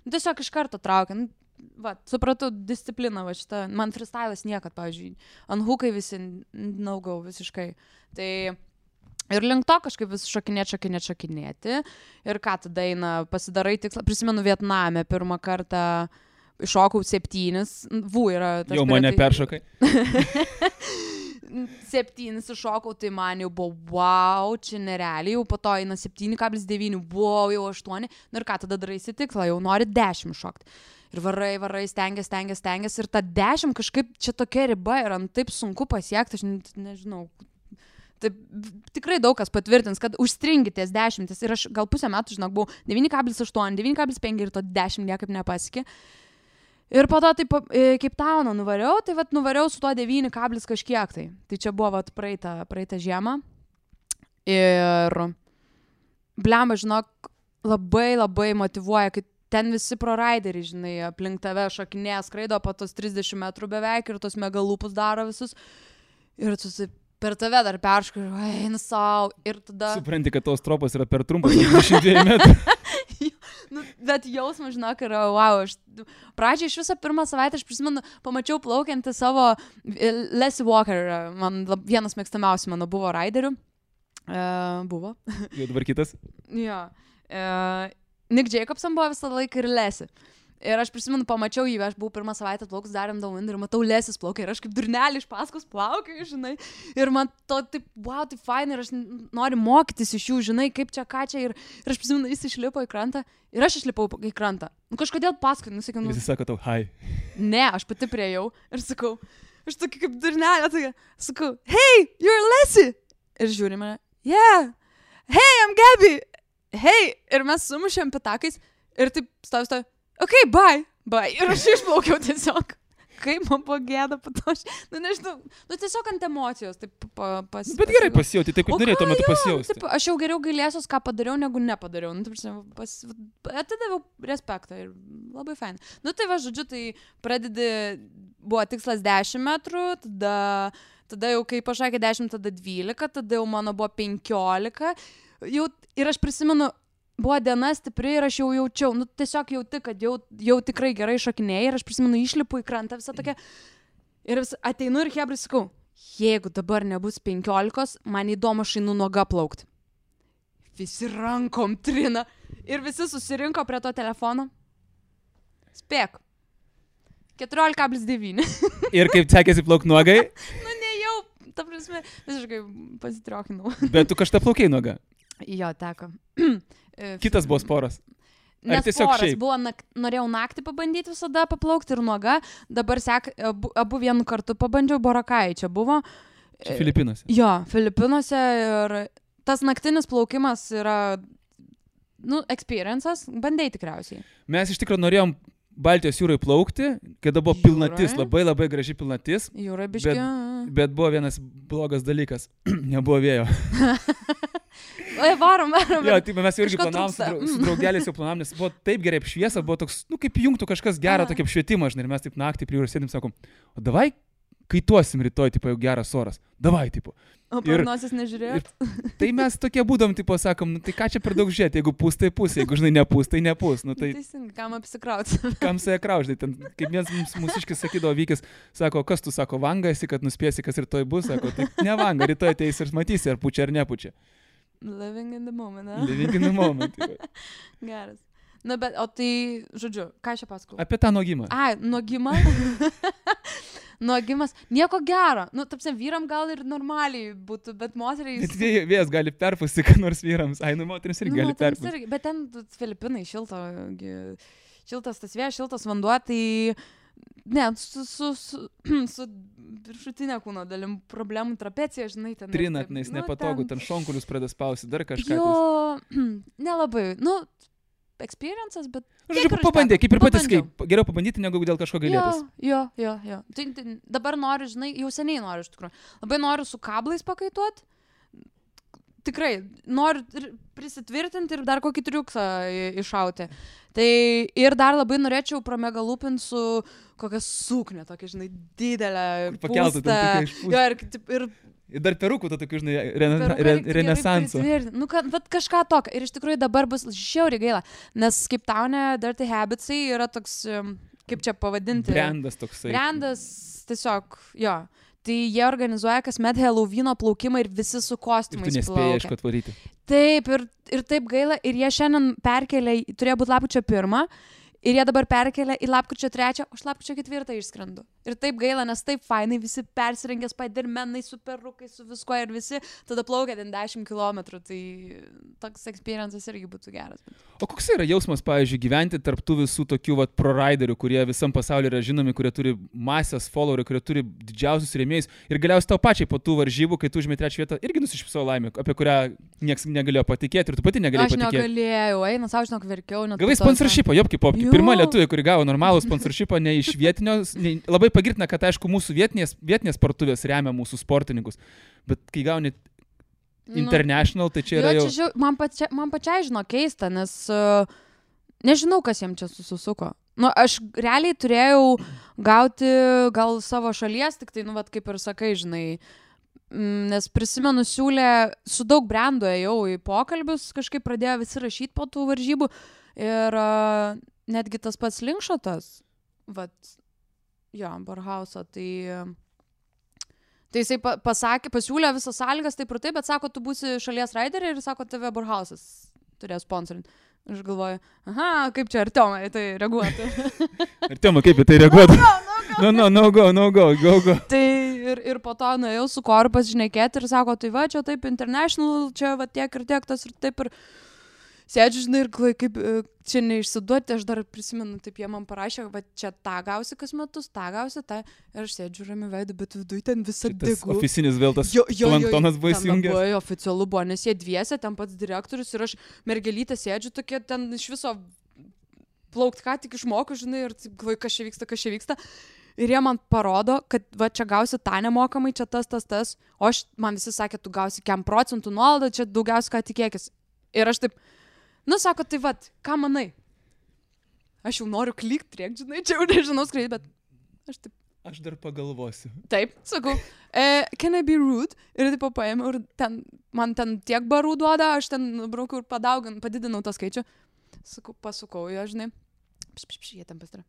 tiesiog iš karto traukia. Va, supratau discipliną, va šitą. Man freestylas niekad, pavyzdžiui, ant hukai visi naugau visiškai. Tai ir link to kažkaip vis šokinėti. Ir ką tada eina, pasidarai tikslą. Prisimenu Vietname pirmą kartą iššokau 7. Yra tas. Jau mane peršokai. 7 iššokau, tai man jau buvo wow, čia nerealiai, jau po to eina 7,9, wow, jau 8, ir ką tada daraisi tikslą, jau nori 10 šokti. Ir varai, stengiasi ir ta 10 kažkaip čia tokia riba yra, taip sunku pasiekti, aš nežinau. Taip, tikrai daug kas patvirtins, kad užstringitės 10 ir aš gal pusę metų, žinok, buvau 9,8, 9,5 ir to 10 niekaip nepasiekė. Ir po to taip kaip tauną nuvariau, tai vat nuvariau su to 9 kažkiek tai. Tai čia buvo vat praeitą žiemą. Ir blemba, žinok, labai motyvuoja, kai ten visi proraideriai, žinai, aplink tave šokinėja, skraido po tos 30 metrų beveik ir tos megalūpus daro visus. Ir tu per tave dar perškai, eina sau. Ir tada... Supranti, kad tos tropas yra per trumpas, 22 metrų. Nu, bet jausmas, žinok, yra, wow, pradžiai iš visą pirmą savaitę, aš prisimenu, pamačiau plaukiantį savo Leslie Walker, vienas mėgstamiausių mano buvo raiderių. Buvo. Jau dabar kitas? Jo. Nick Jacobson buvo visą laiką ir Leslie. Ir aš prisimenu, pamačiau jį, aš buvau pirmą savaitę plaukus darėm Downwind ir matau Lesis plaukia ir aš kaip durnelį iš paskos plaukiu, žinai. Ir man to taip, wow, tai fain ir aš noriu mokytis iš jų, žinai, kaip čia, ką čia. Ir aš prisimenu, jis išlipo į krantą ir aš išlipau į krantą. Nu kažkodėl paskui, nusakiau. Jis sako tau, hi. Ne, aš pati priejau ir sakau, aš tokia kaip durnelė, tokia, sakau, hey, you're Leslie. Ir žiūri mane, yeah, hey, I'm Gabby. Hey, ir mes sumušėm pitakais ir taip stovi. Okay, bye. Ir aš išplaukiau tiesiog. Kaip man buvo gėda po to. Nu, nežinau, tiesiog ant emocijos. Taip, bet gerai pasijauti, taip kaip norėjai tuo metu pasijausti. Taip, aš jau geriau gailėsiuos, ką padariau, negu nepadariau. Nu, atidaviau respektą ir labai fain. Nu, tai va, žodžiu, tai pradedi, buvo tikslas 10 metrų, tada jau kai pašakė 10, tada 12, tada jau mano buvo 15. Ir aš prisimenu, buvo diena stipri ir aš jau jaučiau, nu tiesiog jauti, kad jau tikrai gerai šokinėjai ir aš prisimenu, išlipu į krantą visą tokia ir ateinu ir hebrai sakau, jeigu dabar nebus 15, man įdomu aš einu nuoga plaukti. Visi rankom trina ir visi susirinko prie to telefono. Spėk. 14,9. Ir kaip sekėsi plaukti nuogai? Nu nejau, ta prasme, visiškai pasitriokinau. Bet tu kažką plaukiai nuoga? Jo, teko. Kitas buvo sporas. Nes sporas buvo, norėjau naktį pabandyti visada paplaukti ir nuoga. Dabar abu vienu kartu pabandžiau, Borakai čia buvo. Čia Filipinuose. Jo, Filipinuose ir tas naktinis plaukimas yra, nu, experiences, bandai tikriausiai. Mes iš tikrųjų norėjom Baltijos jūrai plaukti, kada buvo pilnatis, labai labai graži pilnatis. Jūrai biški. Bet buvo vienas blogas dalykas, nebuvo vėjo. Oi, varom. Jo, tai mes jau irgi planavom, su draugeliais jau planavom, nes buvo taip gerai apšviesa, buvo toks, nu kaip jungtų kažkas gerą tokį apšvietimą, žinai, ir mes taip naktį prie jūros sėdim, sakom, o davai kaituosim rytoj, tipo, jau geras oras, davai, tipo. O prognozės nežiūrėjot? Tai mes tokie būdom, tipo, sakom, nu tai ką čia per daug žiūrėti, jeigu pūs, tai pūs, jeigu, žinai, nepūs, tai nepūs. Nu, tai teisingai, kam apsikrauti? Kam save krauždai, ten, kaip vienas mūsiškis sakydavo, vykis, sako, kas tu, sako, vanga esi, kad nuspėsi, kas rytoj bus, sako, tai ne vanga, rytoj ateis ir matysi, ar pučia, ar nepučia. Living in the moment, ne? Living in the moment. Geras. Na, bet, o tai, žodžiu, ką aš čia pasakau? Apie tą nuogimą. Ai, nuogimą? Nuogimas, nieko gero. Nu, tapsim, vyram gal ir normaliai būtų, bet moteriai... Bet vėjas gali perpūsti, kad nors vyrams. Ai, nu, moterims irgi gali perpūsti. Bet ten Filipinai šiltas tas vėjas, šiltas vanduo, tai... Ne, su viršutinė kūno dalim problemų trapecija, žinai, ten... Trinat, nes nepatogu, ten šonkulius pradės spausti, dar kažką. Jo, nelabai, nu... experiences, bet... Žodžiu, pabandė, kaip ir patys, geriau pabandyti, negu dėl kažko gailėtis. Jo. Tai dabar noriu, žinai, jau seniai noriu iš tikrųjų. Labai noriu su kablais pakaituoti. Tikrai, noriu prisitvirtinti ir dar kokį triuksą iššauti. Tai ir dar labai norėčiau pramegalupinti su kokia suknė, tokia, žinai, didelė, pūsta. Jo, ir dar perukų to tokių, žinai, renesanso. Nu, bet kažką tokio. Ir iš tikrųjų dabar bus žiauriai gaila. Nes kaip taune Dirty Habitsai yra toks, kaip čia pavadinti. Brandas toksai. Brandas tiesiog, jo. Tai jie organizuoja kasmet Halloweeno plaukimą ir visi su kostiumais plaukia. Ir tu nespėjai aišku atvaryti. Taip, ir taip gaila. Ir jie šiandien perkelė, turėjo būti lapkričio 1. Ir jie dabar perkelia į lapkričio 3, o aš lapkričio 4 išskrendu. Ir taip gaila, nes taip fainai, visi persirengė Spidermanai su perukai, su viskuo ir visi tada plaukia ten 10 kilometrų. Tai toks experiences irgi būtų geras. O koks yra jausmas, pavyzdžiui, gyventi tarp tų visų tokių pro-riderių, kurie visam pasaulyje yra žinomi, kurie turi masės followerių, kurie turi didžiausius rėmėjus ir galiausiai tau pačiai po tų varžybų, kai tu užėmė 3 vietą, irgi nusišypsau laimę, apie kurią niekas negalėjo patikėti ir tu pati negalėjai patikėti. Aš negalėjau, eina, savo žinok, verkiau. Gavai sponsorshipą, jopki popki. Pirma lietuvė, kuri gavo normalų sponsorshipą, ne iš vietinio, labai pagirtina, kad aišku mūsų vietinės parduotuvės remia mūsų sportininkus, bet kai gauni international, tai čia yra jau... Man pačiai žino keista, nes nežinau, kas jiems čia susisuko. Nu, aš realiai turėjau gauti gal savo šalies, tik tai, nu, vat, kaip ir sakai, žinai, nes prisimenu, siūlė, su daug brandų ėjau į pokalbius, kažkaip pradėjo visi rašyti po tų varžybų Ir netgi tas pats Linkšotas, Barhauso, tai jisai pasiūlė visas sąlygas, taip ir taip, bet sako, tu būsi šalies raiderė ir sako, tave Barhausas turės sponsorinti. Aš galvoju, kaip čia Artiomai tai reaguotų. Artiomai, kaip į tai reaguotų? No go. Tai ir po to nuėjau su Koru pasišnekėti ir sako, tai čia taip international, čia tiek ir tiek tas ir taip ir sėdžiu, žinai, ir kaip čia neišsiduoti, aš dar prisimenu, taip jie man parašė, čia tą gausi kas metus, tą gausi, tą, ir aš sėdžiu rami veidu, bet viduj ten visą degu. Oficinis vėl tas planktonas buvo įsijungęs. Labai oficialu buvo, nes jie dviese, ten pats direktorius ir aš mergelytė sėdžiu tokie, ten iš viso plaukt ką tik išmoku, žinai, ir taip, kas čia vyksta. Ir jie man parodo, kad čia gausi tą nemokamai, čia tas, o man visi sakė, tu gausi 1% nuolaidą, čia daugiausiai ką tikėkis. Ir aš taip, sako, tai ką manai? Aš jau noriu klykt, žinai, čia jau nežinau skraidyti, bet aš taip. Aš dar pagalvosiu. Taip, sakau, can I be rude? Ir taip paėmiau ir man ten tiek barų duoda, aš ten braukiau ir padidinau tą skaičių. Sakau, pasukau, žinai, jie ten pasitara.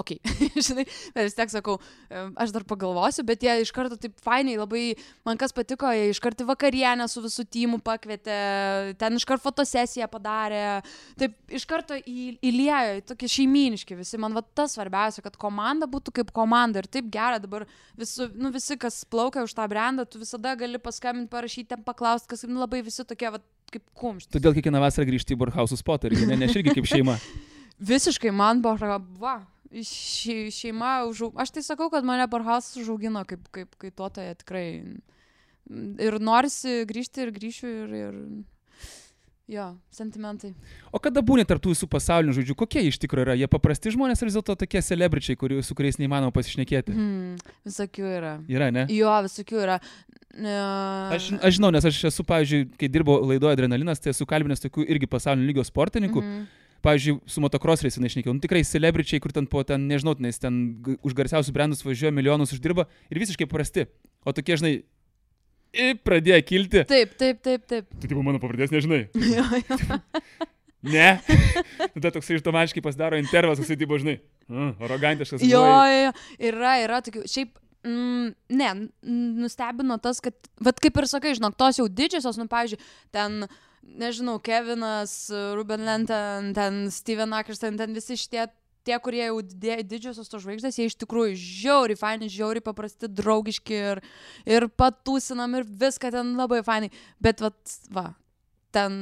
Ok, žinai, bet vis tiek sakau, aš dar pagalvosiu, bet jie iš karto taip fainiai, labai, man kas patiko, jie iš karto vakarienę su visų tymu pakvietė, ten iš karto fotosesiją padarė, taip iš karto įliejo, tokie šeimyniški visi, man tas svarbiausia, kad komanda būtų kaip komanda ir taip gera dabar visi, kas plaukia už tą brandą, tu visada gali paskambinti, parašyti, ten paklausti, kas labai visi tokie kaip kumštis. Todėl kiekvieną vasarą grįžti į Borhausų spotą ir aš irgi kaip šeima. Visiškai man šeima aš tai sakau, kad mane Borhausas užaugino kaip kaituotoja tikrai. Ir norisi grįžti ir grįšiu ir jo, sentimentai. O kada būni tarp tų visų pasaulinių žodžių, kokie iš tikrųjų yra? Jie paprasti žmonės ar vis dėlto tokie celebričiai, su kuriais neįmanoma pasišnekėti? Visokių yra. Yra, ne? Jo, visokių yra. Aš žinau, nes aš esu, pavyzdžiui, kai dirbau laidoje Adrenalinas, tai esu kalbinęs tokių irgi pasaulinio lygio sportininkų. Pavyzdžiui, su motocrosseriais išnekėjau, tikrai celebričiai, kur ten nežinau, nes ten už garsiausius brandus važiuoja, milijonus uždirba ir visiškai prasti. O tokie, žinai, pradėjo kilti. Taip. Tu tipo mano pavardės nežinai. Jo. Ne. Tada toksai automatiškai pasidaro intervas, toksai tipo, žinai, arogantiškas. Jo, yra tokių. Šiaip, nustebino tas, kad, kaip ir sakai, žinok, tos jau didžiosios, pavyzdžiui, ten nežinau, Kevinas, Ruben Lenten, ten Steven Akers, ten visi šitie, kurie jau didžiosios to žvaigždės, jie iš tikrųjų žiauriai faini, žiauriai paprasti, draugiški ir patūsinam ir viską ten labai fainai. Bet ten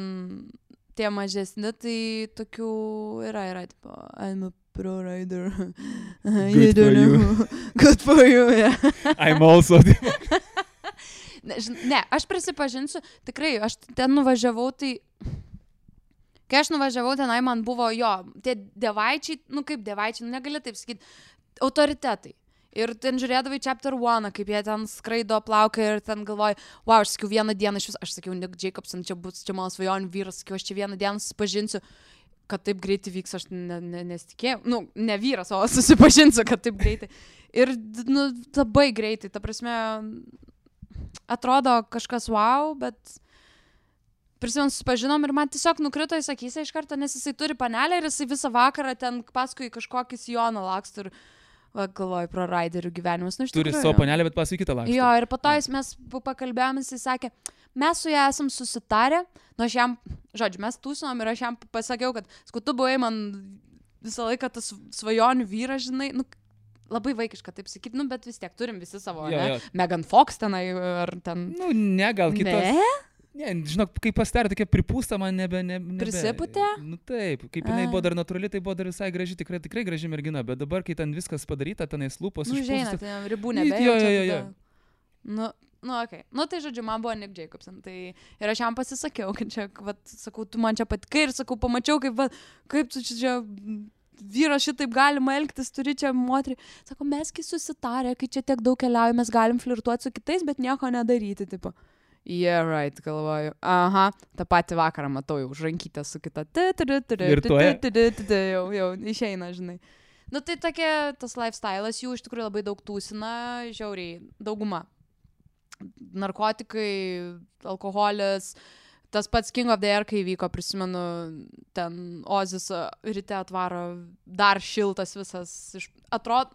tie mažesni, tai tokių yra tipo, I'm a pro rider. Good for you, yeah. I'm also. Ne, aš prisipažinsiu, tikrai, aš ten nuvažiavau, tai kai aš nuvažiavau, tenai man buvo tie dievaičiai, kaip dievaičiai, negali taip sakyti, autoritetai. Ir ten žiūrėdavai Chapter 1, kaip jie ten skraido, plaukia ir ten galvoju, aš sakiau vieną dieną aš sakiau, Nick Jacobson, čia mano svajonių vyras, sakiau, aš čia vieną dieną susipažinsiu, kad taip greitai vyks, aš nesitikėjau, ne vyras, o susipažinsiu, kad taip greitai. Ir labai greitai, ta prasme, atrodo kažkas wow, bet prisimenu, susipažinom ir man tiesiog nukrito į akise iš karto, nes jisai turi panelę ir jisai visą vakarą ten paskui kažkokį sijoną laksto ir galvoju pro raiderių gyvenimus. Turi savo panelę, bet paskui kitą laksto. Jo, ir po to mes pakalbėjom, jisai sakė, mes su ją esam susitarę, aš jam, mes tūsinom ir aš jam pasakiau, kad tu buvai man visą laiką tas svajonių vyras, žinai, labai vaikiška taip sakyti, bet vis tiek turim visi savo, ne? Megan Fox tenai ar ten... Gal kitos. Ne? Ne, žinok, kai pasidarė tokia pripūsta, man nebe... Prisipūtė? Taip, kaip jinai buvo dar natūrali, tai buvo dar visai graži, tikrai graži mergina, bet dabar, kai ten viskas padaryta, tenais lūpos išpūstas... ten ribų nebejaučia. Okay. Tai žodžiu, man buvo Nick Jacobson, tai ir aš jam pasisakiau, kad čia, sakau, tu man čia patikai ir sakau, pamačiau, kaip tu čia... vyras šitaip galima elgtis, turi čia moterį. Sako, mes kai susitarę, kai čia tiek daug keliauja, mes galim flirtuoti su kitais, bet nieko nedaryti, tipo. Yeah, right, galvoju. Aha, tą patį vakarą matau jau žrankytę su kita. Jau išeina, žinai. Tai tokia, tas lifestyle'as jų iš tikrųjų labai daug tūsina, žiauriai, dauguma. Narkotikai, alkoholis, tas pats King of the Air, kai vyko, prisimenu, ten Ozis ryte atvaro dar šiltas visas, atrodo,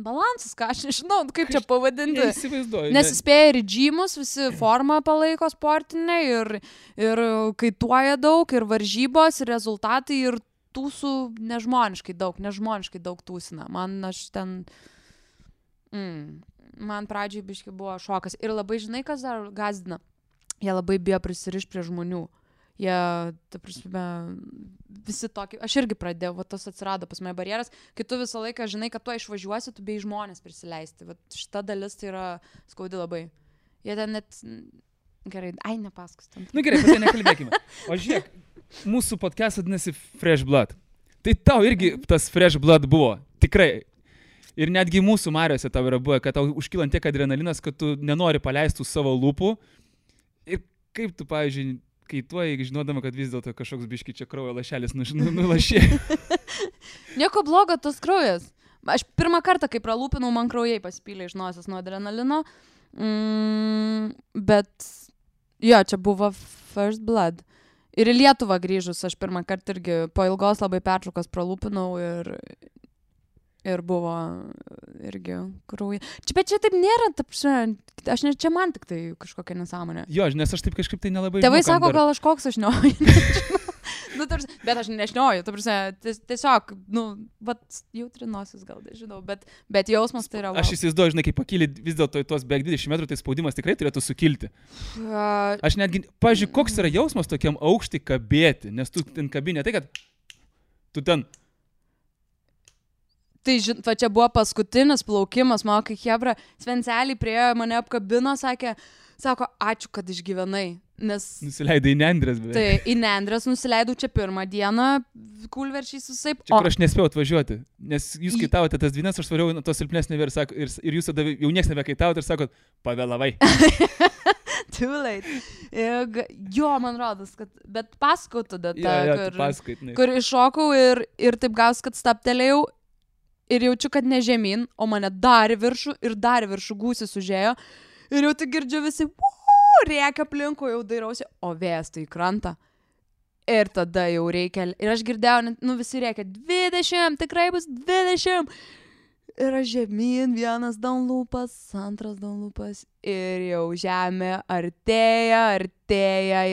balansas, ką aš nežinau, kaip čia pavadinti. Neįsivaizduoju. Nes spėja ir džymus, visi formą palaiko sportinę ir kaituoja daug, ir varžybos, ir rezultatai, ir tūsų nežmoniškai daug tūsina. Man pradžiai biškai buvo šokas. Ir labai žinai, kas dar gazdina. Jie labai bijo prisirišti prie žmonių. Jie, ta prasme, visi tokie, aš irgi pradėjau, va tas atsirado pas mane barjeras, kai tu visą laiką žinai, kad tu išvažiuosi, tu bei žmonės prisileisti. Va šita dalis tai yra skaudi labai. Jie ten net, gerai, nepasakos ten. Nu gerai, apie tai nekalbėkime. O žiūrėk, mūsų podcast vadinasi Fresh Blood. Tai tau irgi tas Fresh Blood buvo, tikrai. Ir netgi mūsų Mariose tau yra buvo, kad tau užkylant tiek adrenalinas, kad tu nenori paleisti savo lūpų. Ir kaip tu, pavyzdžiui, kaituoji, žinodama, kad vis dėlto kažkoks biški čia kraujo lašelis nulašė. Nieko blogo tas kraujas. Aš pirmą kartą, kai pralūpinau, man kraujai pasipylė iš nosies nuo adrenalino. Bet, jo, čia buvo First Blood. Ir į Lietuvą grįžus, aš pirmą kartą irgi po ilgos labai pertraukos pralūpinau ir buvo irgi krauja. Bet čia taip nėra, čia man tik tai kažkokia nesąmonė. Jo, nes aš taip kažkaip tai nelabai... Tėvai sako, gal aš koks aš šnioju. Bet aš nešnioju, tiesiog, jautrinosis gal, žinau, bet jausmas tai yra... Aš įsivaizduoju, žinai, kai pakyli vis dėlto į tuos beveik 20 metrų, tai spaudimas tikrai turėtų sukilti. Aš netgi, pavyzdžiui, koks yra jausmas tokiam aukštį kabėti, nes tu ten kabinė, tai kad tu ten... Tai čia buvo paskutinis plaukimas, mano kai Hebra Svencelį priejo, mane apkabino, sako, ačiū, kad išgyvenai. Nes... Nusileidai į Nendrės beveik. Tai į Nendrės nusileidau čia pirmą dieną, kulverčiais visai. Čia kur aš nespėjau atvažiuoti, nes jūs kaitavote tas dvynes, aš svariau to silpnesnį ir jūs tada jau nieks nebekaitavote ir sakot, pavėlavai. Too late. Jo, man rodos, kad... Bet pasakau tada, kur iššokau ir taip gaus, kad staptelėjau. Ir jaučiu, kad ne žemyn, o mane dar į viršų gūsis užėjo. Ir jau tik girdžiu visi, rėkia aplinkui, jau dairausi, o vėjas tai į krantą. Ir tada jau reikia, ir aš girdėjau, visi rėkia, 20, tikrai bus 20. Ir aš žemyn, vienas downloopas, antras downloopas. Ir jau žemė artėja.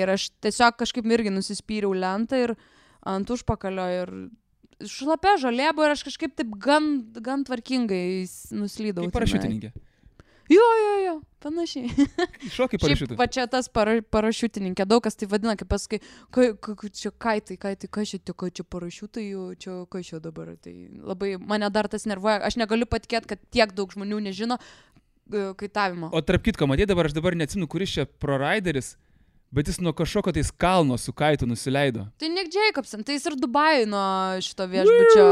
Ir aš tiesiog kažkaip irgi nusispyriau lentą ir ant užpakalio ir... Šlapia žolė buvo ir aš kažkaip taip gan tvarkingai nuslydau. Kaip parašiutininkė. Jo, panašiai. Šokai parašiutų. Šiaip, va čia tas parašiutininkė, daug kas tai vadina, kaip pasakai, čia kaitai, kas čia parašiutai, čia kas čia dabar. Tai labai mane dar tas nervuoja, aš negaliu patikėti, kad tiek daug žmonių nežino kaitavimo. O tarp kitko, matai dabar, aš dabar neatsimenu, kuris čia proraideris, bet jis nuo kažkokio tais kalno su kaitu nusileido. Tai Nick Jacobson, tai jis ir Dubajui nuo šito viešbučio.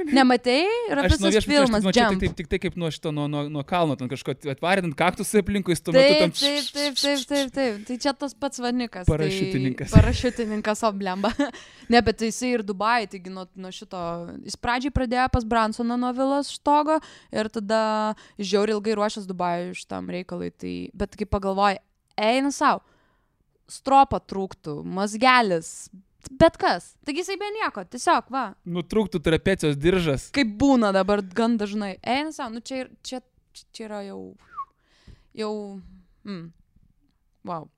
Nematei? Yra visas filmas Jump. Tik tai kaip nuo šito, nuo kalno, ten kažko atvarint kaktusai aplinkui, tuo metu tam... Taip. Tai čia tas pats vanikas. Parašiutininkas. Tai parašiutininkas oblemba. Ne, bet jisai ir Dubajui, taigi nuo šito... Jis pradžiai pradėjo pas Bransoną nuo vilos štogo ir tada žiauriai ilgai ruošęs Dubajui šitam reikalui. Tai... Bet kai pagalvoji, eina sau. Stropa trūktų, mazgelis, bet kas. Taigi jisai be nieko, tiesiog, va. Nutrūktų trapecijos diržas. Kaip būna dabar gan dažnai. Eina savo, čia yra jau... Wow.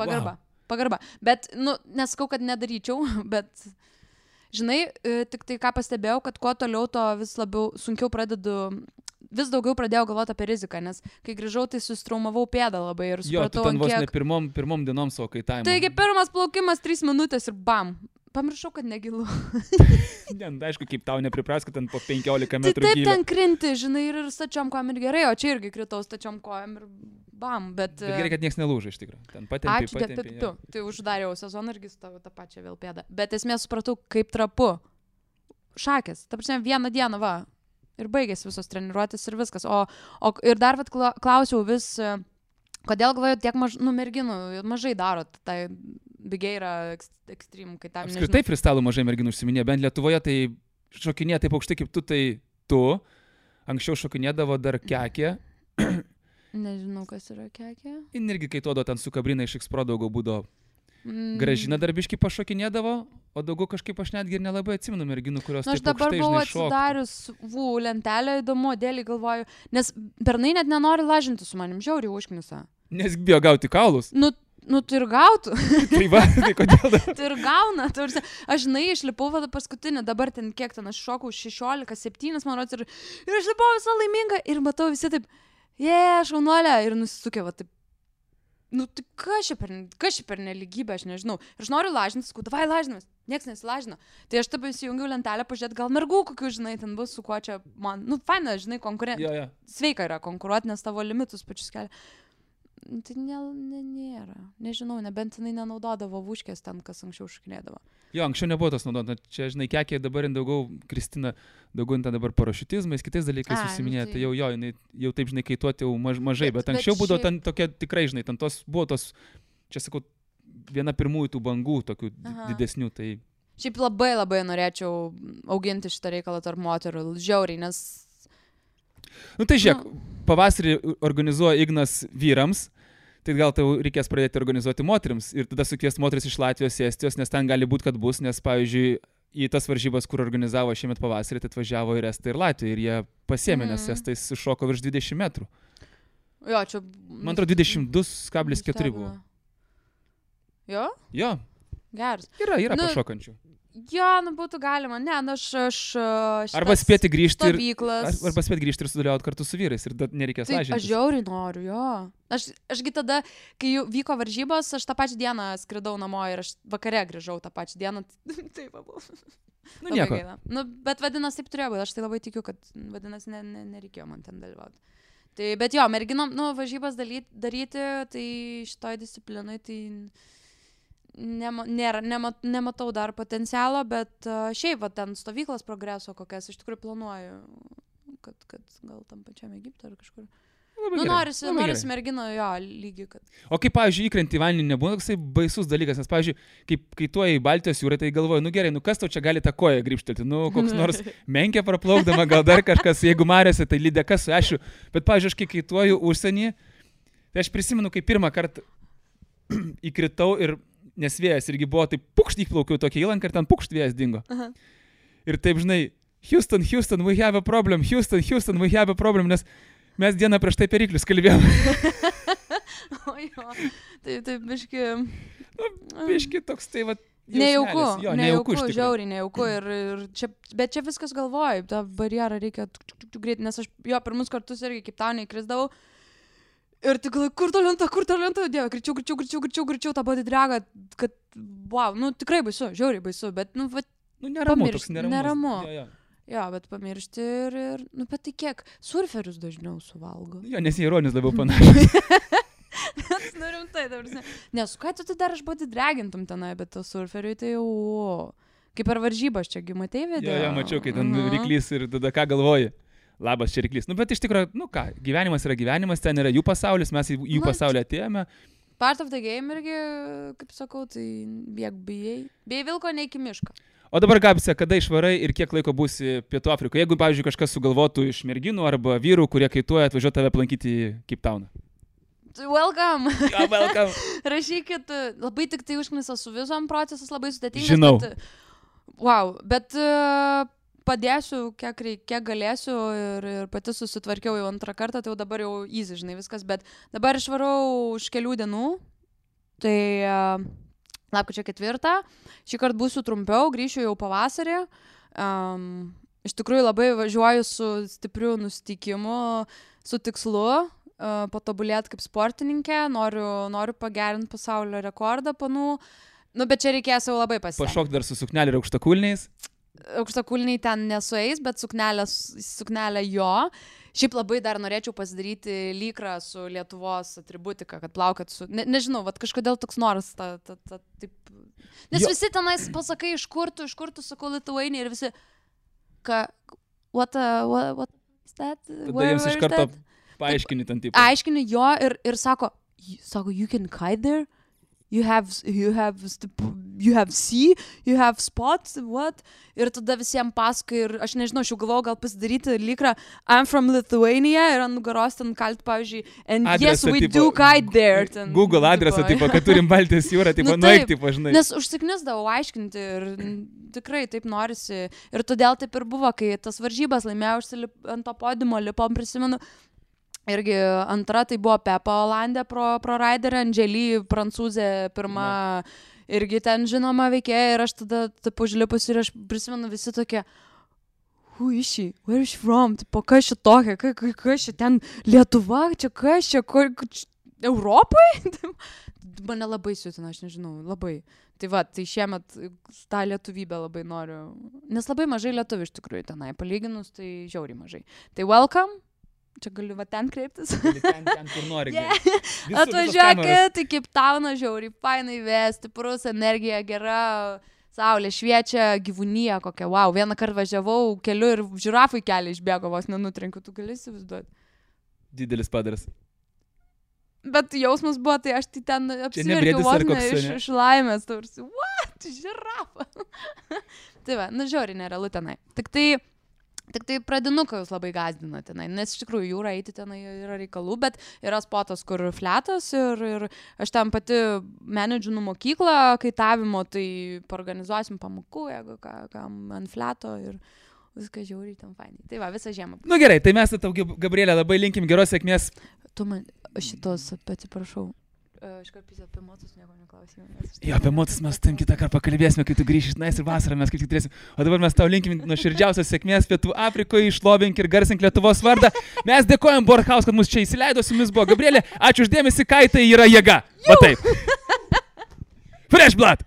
Pagarba. Bet, nesakau, kad nedaryčiau, bet... Žinai, tik tai ką pastebėjau, kad kuo toliau, to vis daugiau pradėjau galvoti apie riziką, nes kai grįžau, tai sustraumavau pėdą labai ir supratau, tu ten vos ne pirmom dienom savo kaitavimo. Taigi pirmas plaukimas 3 minutės ir bam. Pamiršau, kad negilu. Aišku, kaip tau nepripras, kad ten po 15 metrų tai taip gilio. Ten krinti, žinai, ir stačiom kojom ir gerai, o čia irgi kritau stačiom kojom ir bam, bet gerai, kad nieks nelūžo iš tikrųjų. Ten patempė. Tai uždariau sezoną irgi su tą pačią vėl pėdą. Bet esmė supratau, kaip trapu. Šakės. Ta prasme, vieną dieną, va. Ir baigėsi visos treniruotės ir viskas. Ir dar klausiau vis, kodėl galvoju tiek merginų mažai daro. Tai bigiai yra ekstrem, kai tam nežinau. Apskritai freestyle mažai merginų užsiminė, bent Lietuvoje tai šokinė taip aukštai kaip tu, tai tu. Anksčiau šokinėdavo dar Kekė. Nežinau, kas yra Kekė. Ir irgi kaituodavo ten su Kabrina iš X-Pro daugiau būdavo. Gražina darbiškai pašokinėdavo, o daugiau kažkaip aš netgi ir nelabai atsimenu merginų, kurios aš dabar buvau atsidarius lentelę, įdomu, dėlį galvoju, nes bernai net nenori lažinti su manim, žiauriai užknisa. Nes bijo gauti kaulus. Nu, tu ir gautų. Tai va, tai kodėl? Tu ir gauna. Aš išlipau paskutinį, dabar ten kiek ten, aš šokau 16-7, man rodos, ir aš lipau visą laiminga ir matau visi taip, šaunuolė, ir nusisukė, va taip. Nu, tai kas čia per neligybę, aš nežinau. Ir aš noriu lažintis, davai lažinamas, nieks nesilažino. Tai aš taip įsijungiau lentelę, pažiūrėt, gal mergų kokių, žinai, ten bus, su kuo čia man, faina, žinai, sveika yra konkuruoti, nes tavo limitus pačius kelia. Tai nėra. Nežinau, nebent jinai nenaudodavo vuškės ten, kas anksčiau šokinėdavo. Jo, anksčiau nebuvo tas naudodama. Čia, žinai, Kekė dabar daugiau, Kristina, daugiau ten dabar parašiutizmais, kitais dalykais užsiminė. Tai jinai jau taip, žinai, kaituoti jau mažai, bet anksčiau būdavo ten tokia tikrai, žinai, ten buvo tos, čia sakau, viena pirmųjų tų bangų, tokių didesnių. Tai... Šiaip labai labai norėčiau auginti šitą reikalą tarp moterų, žiauriai, nes... Nu tai žiūrėk, pavasarį organizuoja Ignas vyrams, tai gal tau reikės pradėti organizuoti moterims ir tada sukviesti moteris iš Latvijos, Estijos, nes ten gali būti, kad bus, nes, pavyzdžiui, į tas varžybas, kur organizavo šiemet pavasarį, tai atvažiavo ir Estai, ir Latvija, ir jie pasiėmė, nes Estai sušoko virš 20 metrų. Jo, čia... Man atrodo, 22,4 buvo. Jo? Jo. Geras. Yra pašokančių. Jo, būtų galima. Ne, aš arba spėti grįžti stovyklas. Arba spėti grįžti ir sudalyvauti kartu su vyrais ir nereikės lažintis. Aš žiauriai noriu, jo. Ašgi tada, kai vyko varžybos, aš tą pačią dieną skridau namo ir aš vakare grįžau tą pačią dieną. Taip, buvo. Nu, nieko. Bet vadinasi, taip turėjo būti. Aš tai labai tikiu, kad vadinasi, nereikėjo man ten dalyvauti. Tai, bet jo, merginom, varžybas daryti, tai šitoj disciplinui, tai... Nematau dar potencialo, bet šiaip va, ten stovyklas progreso kokias iš tikrųjų planuoju, kad gal tam pačiam Egipte ar kažkur. Norisi mergino jo lygiai. Kad... O kaip, pavyzdžiui, įkrenti į vandenį nebūna toksai baisus dalykas, nes, pavyzdžiui, kai tu į Baltijos jūrą, tai galvoju, gerai, kas tau čia gali tą koją grįžtelti, koks nors menkė praplaukdama, gal dar kažkas, jeigu mariose, tai lydeka su ešiu, bet, pavyzdžiui, aš kai kaituoju užsienį, tai aš prisimenu, kai pirmą kartą įkritau ir nes vėjas irgi buvo, taip pukšt įplaukiau tokia įlanka ir ten pukšt vėjas dingo. Aha. Ir taip, žinai, Houston, we have a problem, Houston, we have a problem, nes mes dieną prieš tai periklius kalbėjom. O jo, taip, biški... Biški toks, tai va... Nejauku, žiauriai nejauku. Bet čia viskas galvoju, tą barjerą reikia greitai, nes aš jo pirmus kartus irgi kaip tau neįkrisdavau. Ir tik, kur to lenta, dieve, greičiau tą body dragą, kad, wow, tikrai baisu, žiauriai baisu, bet, neramu, toks neramu. Jo, bet pamiršti ir, bet tai kiek, surferius dažniau suvalgo. Jo, nes jie ironijos labiau panašus. Rimtai, nes, ką tu dar aš body dragintum tenai, bet to surferiui tai jau, kaip per varžybas čia, matei video? Jo, mačiau, kai ten ryklys ir tada ką galvoji. Labas, čia ryklys. Bet iš tikrųjų, gyvenimas yra gyvenimas, ten yra jų pasaulis, mes į jų pasaulį atėjome. Part of the game irgi, kaip sakau, tai bijai vilko ne iki miško. O dabar, Gabse, kada išvarai ir kiek laiko būsi Pietų Afrikoje? Jeigu, pavyzdžiui, kažkas sugalvotų iš merginų arba vyrų, kurie kaituoja, atvažiuoti tave aplankyti į Cape Towną. Welcome. Yeah, welcome. Rašykit, labai tik tai užknisa su vizom, procesas labai sudėtingas. Žinau. Bet padėsiu, kiek galėsiu ir pati susitvarkiau jau antrą kartą, tai jau dabar jau easy, žinai, viskas, bet dabar išvarau už kelių dienų, tai lapkričio 4, šį kartą būsiu trumpiau, grįšiu jau pavasarį, iš tikrųjų labai važiuoju su stipriu nusiteikimu, su tikslu, patobulėti kaip sportininkė, noriu pagerinti pasaulio rekordą panų, bet čia reikės jau labai pasitengti. Pašok dar su suknelė ir aukštakulniais. Aukštakulniai ten nesueis, bet suknelė jo. Šiaip labai dar norėčiau pasidaryti lykrą su Lietuvos atributika, kad plaukėt su... Nežinau, kažkodėl toks noras taip... Nes visi tenais pasakai, iš kur tu sakau Lithuania ir visi... What is that? Tada jiems iš karto paaiškini ten tipo. Aiškini jo ir sako, you can kite there? you have sea, you have spots, what? Ir tada visiems pasakai ir aš nežinau, aš jau galvojau gal pasidaryti lykrą I'm from Lithuania ir ant nugaros ten kalti, pavyzdžiui, and adresą, yes, we do kite there. Ten, Google adresą, tipo, kad turim Baltijos jūrą, tipo, nueik, tipo, žinai. Nes užsiknisdavau aiškinti ir tikrai taip norisi. Ir todėl taip ir buvo, kai tas varžybas laimėjau, ant to podiumo lipom, prisimenu. Irgi antra tai buvo Pepa Olandė pro Raiderę, Andžely, prancūzė, pirma, irgi ten žinoma veikėja ir aš tada taip užlipus ir aš prisimenu visi tokie, who is she, where is she from, tipo, kas čia tokia, kas čia ten Lietuva, čia kas čia, Europai? Mane labai siutina, aš nežinau, labai. Tai va, tai šiemet tą lietuvybę labai noriu, nes labai mažai lietuvių iš tikrųjų tenai, palyginus, tai žiauriai mažai. Tai welcome. Čia galiu va ten kreiptis. Ten, kur nori. Yeah. Atvažiuokit, į Cape Towną, žiauriai, fainai vesti, stiprus, energija gera, saulė šviečia, gyvūnija kokia, wow. Vieną kartą važiavau keliu ir žirafai kelią išbėgo, vos nenutrenkiu, tu gali įsivaizduoti. Didelis padaras. Bet jausmas buvo, tai aš tai ten apsiverkiau vos ne iš laimės, tarsi, what, žirafa. Tai va, žiauriai nerealu tenai. Tik tai pradinuką jūs labai gazdina tenai, nes iš tikrųjų jūra eiti tenai yra reikalų, bet yra spotas, kur fletas ir aš ten pati menedžinu mokyklą kaitavimo, tai organizuosim pamokų, jeigu kam ant fleto ir viskas žiauriai ten fainai. Tai va, visą žiemą. Nu gerai, tai mes tau, Gabrielė, labai linkim geros sėkmės. Tu man šitos, atsiprašau. Aš karpys apie motus nieko neklausime. Jo, apie motus mes tam kitą kartą pakalbėsime, kai tu grįši iš tenais ir vasarą mes kaip tik turėsim. O dabar mes tau linkim nuoširdžiausios sėkmės Pietų Afrikoje, išlovink ir garsink Lietuvos vardą. Mes dėkojam Borhaus, kad mus čia įsileido, su jumis buvo Gabrielė. Ačiū už dėmesį, kaitai yra jėga. Va taip. Fresh blood!